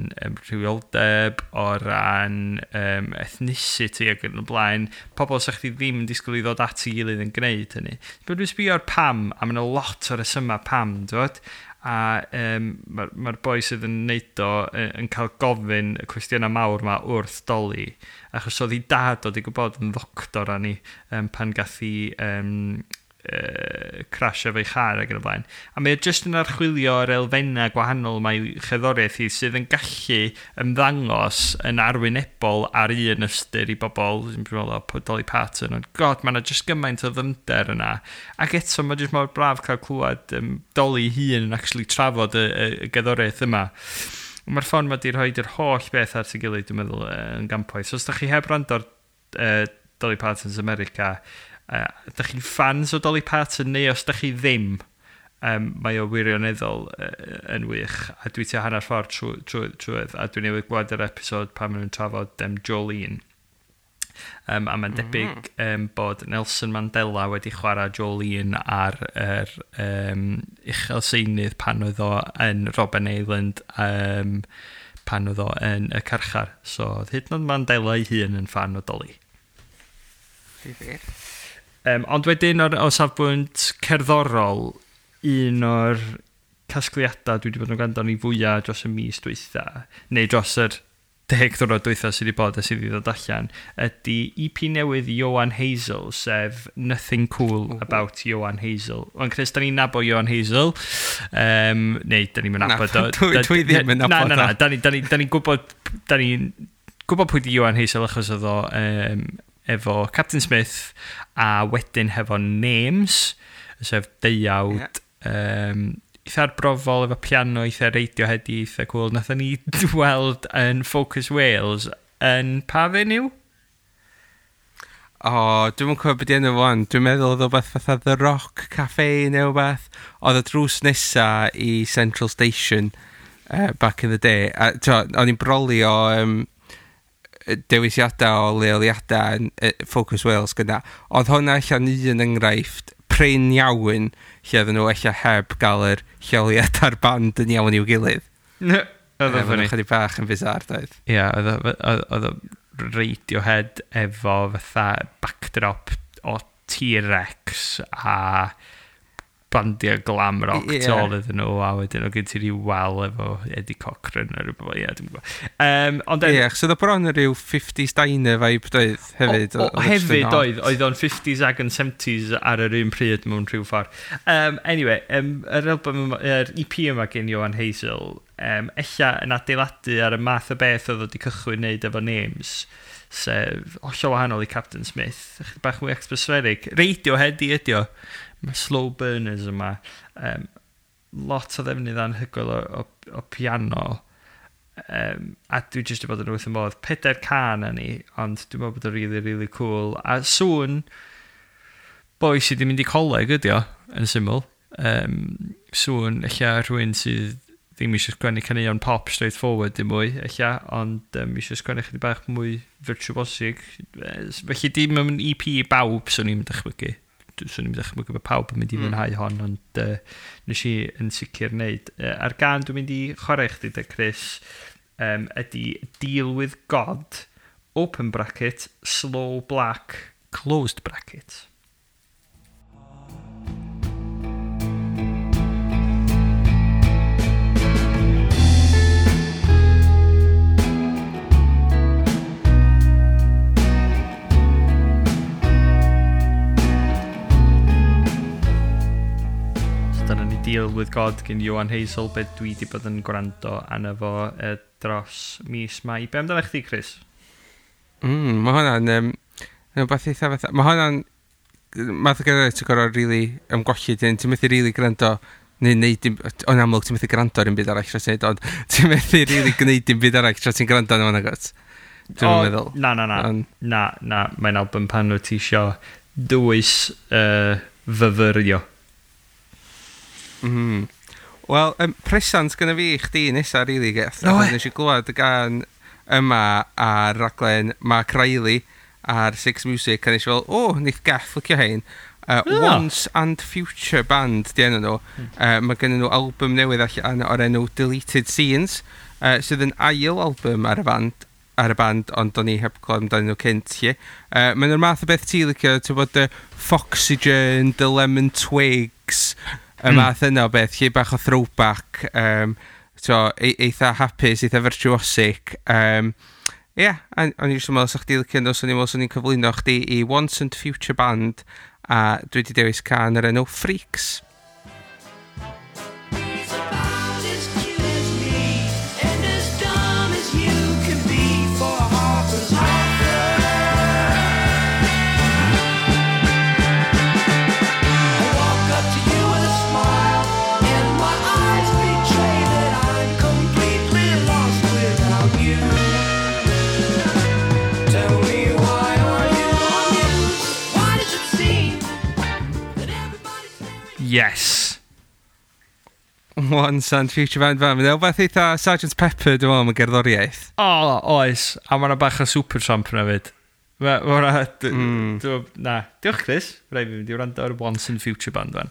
rhywioldeb, o ran ethnicity ac yn y blaen. Pobl sa chdi ddim yn disgwyl i ddod at ei gilydd yn gwneud hynny. But dwi'n sbio ar pam, a mae yna lot o resymau pam, dwi'n A mae'r ma boi sydd yn neud o yn cael gofyn y cwestiynau mawr ma wrth Dolly, achos oedd ei dad oedd i gwybod yn ddoctor ani pan gath hi crash efo'i char ac yn y blaen. A mae o jyst yn archwilio yr elfennau gwahanol mae cherddoriaeth hi sydd yn gallu ymddangos yn arwynebol ar un ystyr i bobl, sy'n meddwl o Dolly Parton, ond god, mae yna jyst gymaint o ddyfnder yna. Ac eto, mae jyst mor braf cael clywed Dolly hun yn actually trafod y gerddoriaeth yma. Mae'r ffordd mae di rhoi yr holl beth at ei gilydd, dwi'n meddwl, yn gampwaith. So os da chi heb wrando ar Dolly Parton's America, da chi'n fans o Dolly Parton neu os da chi ddim, mae o wirioneddol yn wych. A dwi tua hanner ffordd trwydd, a dwi'n newydd gweld yr episod pan maen nhw'n trafod Jolene. A mae'n debyg bod Nelson Mandela wedi chwarae Jolene ar yr uchel seinydd pan oedd o yn Robben Island, pan oedd o yn y carchar. So, oedd hyd yn oed Mandela ei hun yn fan o Dolly. Difyr. Ond wedyn o safbwynt cerddorol, un o'r casgliadau dwi wedi bod yn gwrando ni fwyaf dros y mis dwytha, neu dros yr 10 diwrnod dwytha sydd wedi bod a sydd wedi dod allan, ydy EP newydd Ioan Hazel, sef Nothing Cool About Ioan Hazel. Ond Chris, da ni'n nabod Ioan Hazel, neu da ni'n nabod o. Dwi ddim yn Na, nabod na, na, o. Da ni'n gwybod pwy di Ioan Hazel achos oedd o efo Captain Smith a wedyn hefo Names, sef deuawd eitha arbrofol efo piano, eitha Radiohead, eitha cool. Nathon ni weld yn Focus Wales yn pa venue? O, dwi'n cofio beth enw fo wan. Dwi'n meddwl oedd o beth fatha The Rock Cafe neu wbeth. Oedd y drws nesa i Central Station back in the day. A t'o, o'n i'n brolio dewisiadau o leoliadau yn Focus Wales gyda. Oedd hwnna allan un enghraifft prin iawn lle oedden nhw ella heb gael yr lleoliad a'r band yn iawn i'w gilydd. Oedd o'n Oedd funny. chydig bach yn bizarre, doedd. Ie, oedd o Radiohead efo fatha backdrop o T-Rex a bandiau glam rock tu ôl iddyn nhw, a wedyn o gen ti ryw wal efo Eddie Cochran a rhywbeth, ie, dwi'n gwybod. Ond Ie, achos oedd o bron yn rhyw 50s diner vibe, doedd, hefyd. O, Oedd o jyst yn hefyd odd. oedd o'n 50s ag yn 70s ar yr un pryd mewn rhyw ffordd. Anyway, yr album yma, yr EP yma gen Ioan Hazel, ella yn adeiladu ar y math o beth oedd o wedi cychwyn wneud efo Names, sef hollol wahanol i Captain Smith, chydig bach mwy atmospheric. Radiohead i ydi o. Mae slow burners yma. Lot o ddefnydd anhygoel o piano. A dwi jyst wedi bod yn wrth y modd. Pedair can â ni, ond dwi'n meddwl bod o'n really, really cool. A sŵn boi sydd wedi mynd i coleg ydi o, yn syml. Sŵn ella rhywun sydd ddim eisiau sgwennu caneuon pop straight forward dim mwy, ella, ond eisiau sgwennu chydig bach mwy virtuosic. Felly dim yn EP i bawb, swn i'n dychmygu. Swn i'n dychmygu bod pawb yn mynd i fwynhau hon, ond nes i yn sicr wneud. A'r gân dwi'n mynd i chwarae chdi de, Chris, ydy Deal With God, open bracket, slow black, closed bracket. Dyna ni Deal With God gen Johan Hazel, be dwi wedi bod yn gwrando arno fo dros mis Mai. Be amdano chdi, Chris? Mae hwnna'n rhywbeth eitha fatha. Mae hwnna'n math o gerddoriaeth ti'n gorfod rili ymgolli dyn. Ti'n methu rili gwrando neu neud dim, o'n amlwg ti'n methu gwrando ar un byd arall tra ti'n neud, ond ti'n methu rili gwneud dim byd arall tra ti'n gwrando arno fo, nagwyt? Dwi'n meddwl. Na, na, na. Na, na, mae'n album pan wyt ti isio dwys fyfyrio. Wel, presant gyda fi i chdi nesa, rili, Geth. No, Achos nes i glwad y gân yma ar raglen Mark Riley ar Six Music, a nes i fel, o, neith Geth licio hein. Once and Future Band, di enw nhw. Mae gen nhw album newydd allan o'r enw Deleted Scenes, sydd yn ail album ar y band, ond o'n i heb clywed amdanyn nhw cynt, lle. Mae'n nhw'r math o beth ti licio, ti'n bod y Foxygen, The Lemon Twigs, y math yna o beth, lle bach o throwback, so, eitha hapus, eitha virtuosic. Ie, o'n i jyst yn meddwl 'sa chdi licio nhw, so o'n i'n meddwl 'swn i'n cyflwyno chdi i Once and Future Band, a dwi wedi dewis cân yr enw Freaks. He's about as cute as me and as dumb as you can be for Harper's Offer. I walk up to you with a smile and my eyes betray that I'm completely lost without you. Tell me, why are you amused? Why does it seem that everybody's staring? Yes. Once and Future Band fan. Mae'n rhywbeth eitha Sgt Pepper, dwi'n meddwl, am y gerddoriaeth. O, oes. A mae yna bach o Supertramp yna fyd. Ma' hwnna... Na. Diolch, Chris. Rhaid fi fynd i wrando ar Once and Future Band fan.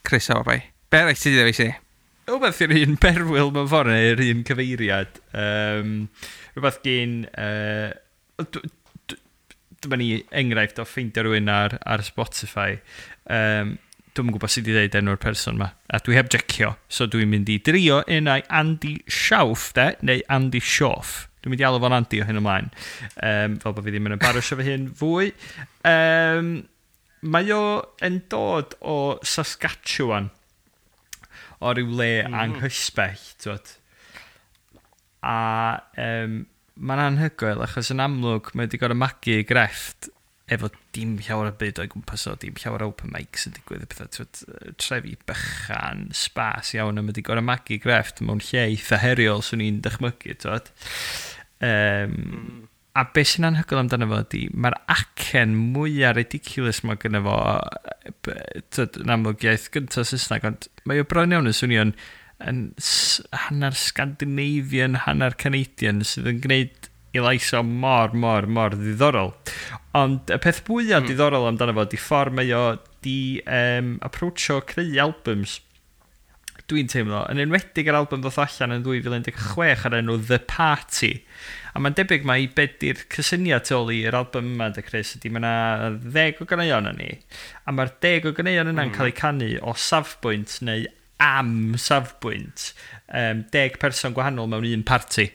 Chris, o, bai. Be arall ti 'di ddewis i? Rhywbeth i'r un berwyl mewn ffordd, neu'r un cyfeiriad. Rhywbeth gen... Dyma ni enghraifft o ffeindio rhywun ar Spotify. Dwi'm yn gwybod sut i ddeud enw'r person yma. A dwi heb jecio, so dwi'n mynd i drio unai Andy Shauf, de, neu Andy Shauf. Dwi'n mynd i alw fo'n Andy o hyn ymlaen. Fel bod fi ddim yn embarrassio fy hun fwy. Mae o yn dod o Saskatchewan, o ryw le anghysbell, t'wod. A mae'n anhygoel, achos yn amlwg mae wedi gorfod magu ei grefft efo dim llawer o byd o'i gwmpas o, dim llawer o open mics yn digwydd, y pethau, t'wod, trefi bychan, spas iawn, a mae wedi gorfod magu grefft mewn lle eitha heriol, swn i'n dychmygu, t'wod. A beth sy'n anhygoel amdano fo ydi, mae'r acen mwyaf ridiculous mae gynno fo, t'wod, yn amlwg iaith gyntaf Saesneg, ond mae o bron iawn yn swnio'n yn hanner Scandinavian, hanner Canadian, sydd yn gwneud i lais o mor, mor, mor ddiddorol. Ond y peth fwyaf diddorol amdano fo ydi ffordd mae o di approachio creu albums. Dwi'n teimlo, yn enwedig yr album ddoth allan yn 2016 ar enw The Party. A mae'n debyg mai be di'r cysyniad tu ôl i'r album yma, de Chris, ydy mae yna 10 o ganeuon yn ni. A mae'r 10 o ganeuon yna'n cael eu canu o safbwynt neu am safbwynt 10 person gwahanol mewn un party.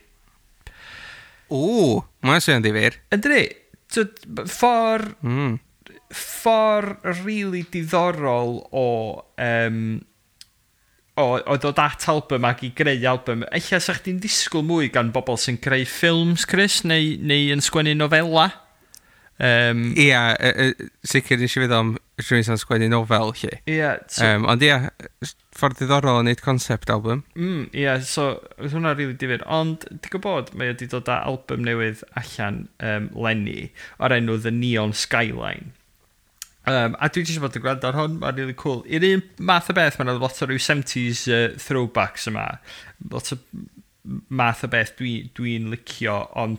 O, mae'n swnio'n ddifyr. Yndi, ffordd ffordd really diddorol o ddod at album ac i greu album. Ella sa chdi'n disgwyl mwy gan bobl sy'n creu ffilms, Chris, neu yn sgwennu nofela. Ia, sicr nes i feddwl am rhywun sy'n sgwennu nofel, lle. Ia, so, Ond ia, ffordd diddorol o wneud concept album. Ia, so, oedd hwnna rili difyr. Ond, ti'n gwybod, mae wedi dod â album newydd allan leni o'r enw The Neon Skyline. A dwi jyst bod yn gwrando ar hwn, mae'n really cool. I'r un math o beth, mae'n lot o ryw 70s throwbacks yma. Lot o math o beth dwi'n licio, ond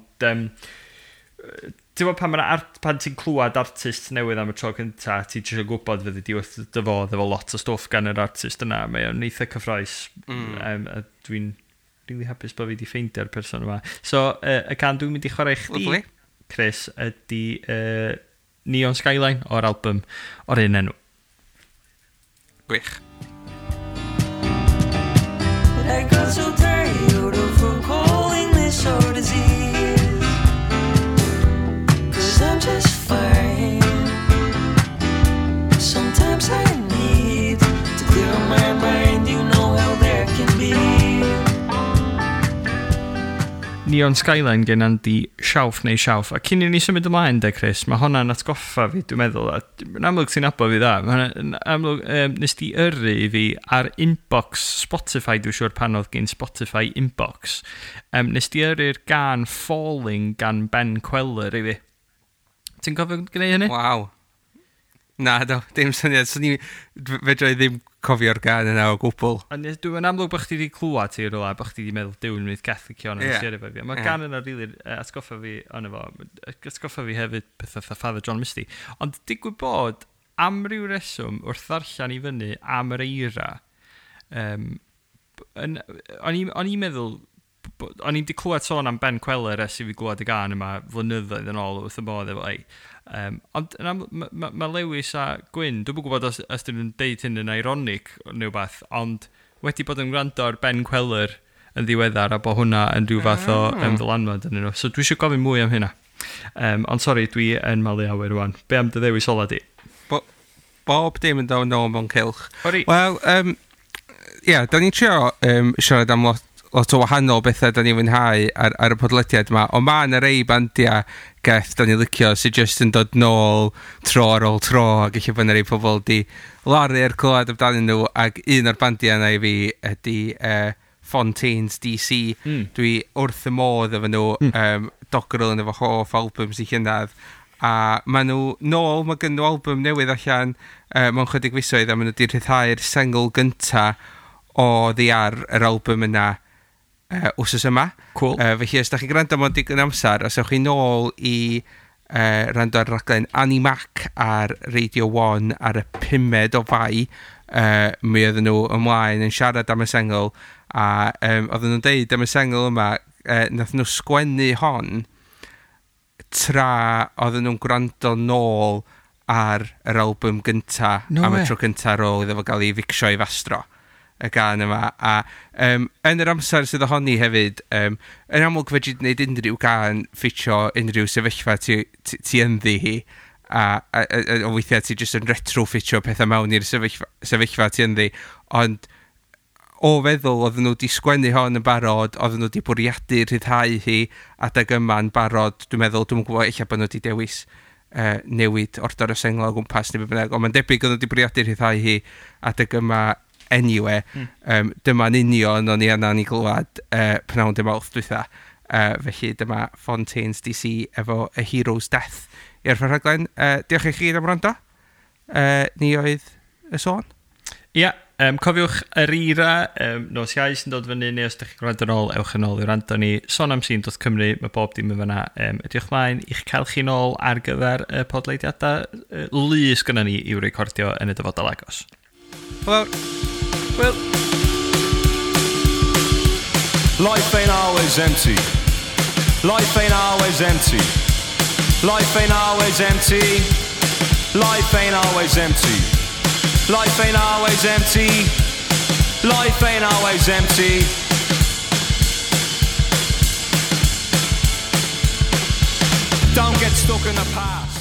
Ti'n gwybod pan, pan ti'n clywed artist newydd am y tro cynta, ti eisiau gwybod fyddi di wrth dy fodd efo lot o stwff gan yr artist yna. Mae o'n eitha cyffrous. A dwi'n really hapus bod fi wedi ffeindio'r person yma. So, y gân dwi'n mynd i chwarae i chdi, Lovely. Chris, ydy Neon Skyline o'r album o'r un enw. Gwych. But I got so tired of her calling this our disease. 'Cause I'm just fine. Sometimes I need to clear my mind. You know how that can be. Neon Skyline gen Andy Shauf neu Shauf. A cyn i ni symud ymlaen, de, Chris, mae hwnna'n atgoffa fi, dwi'n meddwl. A yn amlwg ti'n nabod fi dda. Mae hwnna'n amlwg, nes di yrru i fi ar inbox Spotify, dwi'n siŵr pan oedd gen Spotify inbox. Nes di yrru'r gân Falling gan Ben Kweller i fi. Ti'n cofio gwneud hynny? Waw. Na, do, dim syniad. So ni, fedra i ddim cofio'r gân yna o gwbl. A dwi'n amlwg bod chdi wedi clywed ti rhywle, bod chdi wedi meddwl, Duw, yn mynd Catholic o'n Ie. yeah. efo fi. Mae gân yna really atgoffa fi ono fo. Atgoffa fi hefyd pethau fatha Father John Misty. Ond digwydd bod, am ryw reswm, wrth ddarllen i fyny am yr eira, o'n i'n meddwl, o'n i'n di clywed sôn am Ben Kweller ers i fi glywed y gân yma flynyddoedd yn ôl wrth y modd efo ei. Ond yn aml, ma Lewis a Gwyn, dwi'm yn gwybod os dyn nhw'n deud hyn yn ironic neu wbath, ond wedi bod yn gwrando ar Ben Kweller yn ddiweddar a bod hwnna yn rhyw fath o ddylanwad yn nhw. So dwi eisiau gofyn mwy am hynna. Ond sori, dwi yn malu awyr rwan. Be am dy ddewis ola di? Bob dim yn dod nôl mewn cylch. Ori. Wel, ia, da ni'n trio siarad am lot o wahanol bethau da ni'n fwynhau ar y podlediad yma, ond mae yna rei bandiau geth da ni'n licio sydd jyst yn dod nôl tro ar ôl tro, ac eich bod yna rei pobl di laru ar clywed amdanyn nhw, ac un o'r bandiau yna i fi ydy Fontaines DC. Dwi wrth y modd efo nhw, Dogrel yn efo hoff albums i llynedd, a maen nhw nôl, mae gen nhw album newydd allan mewn chydig fisoedd, a maen nhw wedi rhyddhau'r sengl gynta o ddi ar yr album yna wsos yma. Cool. Felly, os da chi'n gwrando mewn digon amser, os ewch chi nôl i rando ar raglen Annie Mac ar Radio 1 ar y 5 o Fai, mi oedden nhw ymlaen yn siarad am y sengl, a oedden nhw'n deud am y sengl yma, nath nhw sgwennu hon tra oedden nhw'n gwrando nôl ar yr album gynta No am y way. tro gynta ar ôl iddo fo gael ei ficsio i fastro y gân yma, a yn yr amser sydd ohoni hefyd, yn amlwg fedri di wneud unrhyw gân ffitio unrhyw sefyllfa ti ynddi hi, a weithiau ti jyst yn retrofitio pethau mewn i'r sefyllfa ti ynddi, ond o feddwl oedden nhw wedi sgwennu hon yn barod, oedden nhw wedi bwriadu rhyddhau hi adeg yma'n barod, dwi'n meddwl, dwi'n gwybod ella bod nhw wedi dewis newid ordor y sengl o gwmpas neu be bynnag, ond mae'n debyg oedden nhw wedi bwriadu rhyddhau hi adeg yma anyway. Dyma'n union o'n i yna'n ei glywed pnawn dy Mawrth dwytha. Felly dyma Fontaines DC efo A Hero's Death i'r rhaglen. Diolch i chi am wrando. Ni oedd y sôn. Ia, cofiwch yr eira, nos Iau sy'n dod fyny, neu os ydych chi'n gwrando yn ôl, ewch yn ôl i wrando ni. Sonamsîn.cymru, mae bob dim yn fyna. Edrych mlaen i'ch cael chi nôl ar gyfer y podlediadau lu sgynnon ni i'w recordio yn y dyfodol agos. Wel, Wel. Life ain't always empty. Life ain't always empty. Life ain't always empty. Life ain't always empty. Life ain't always empty. Life ain't always empty. Don't get stuck in the past.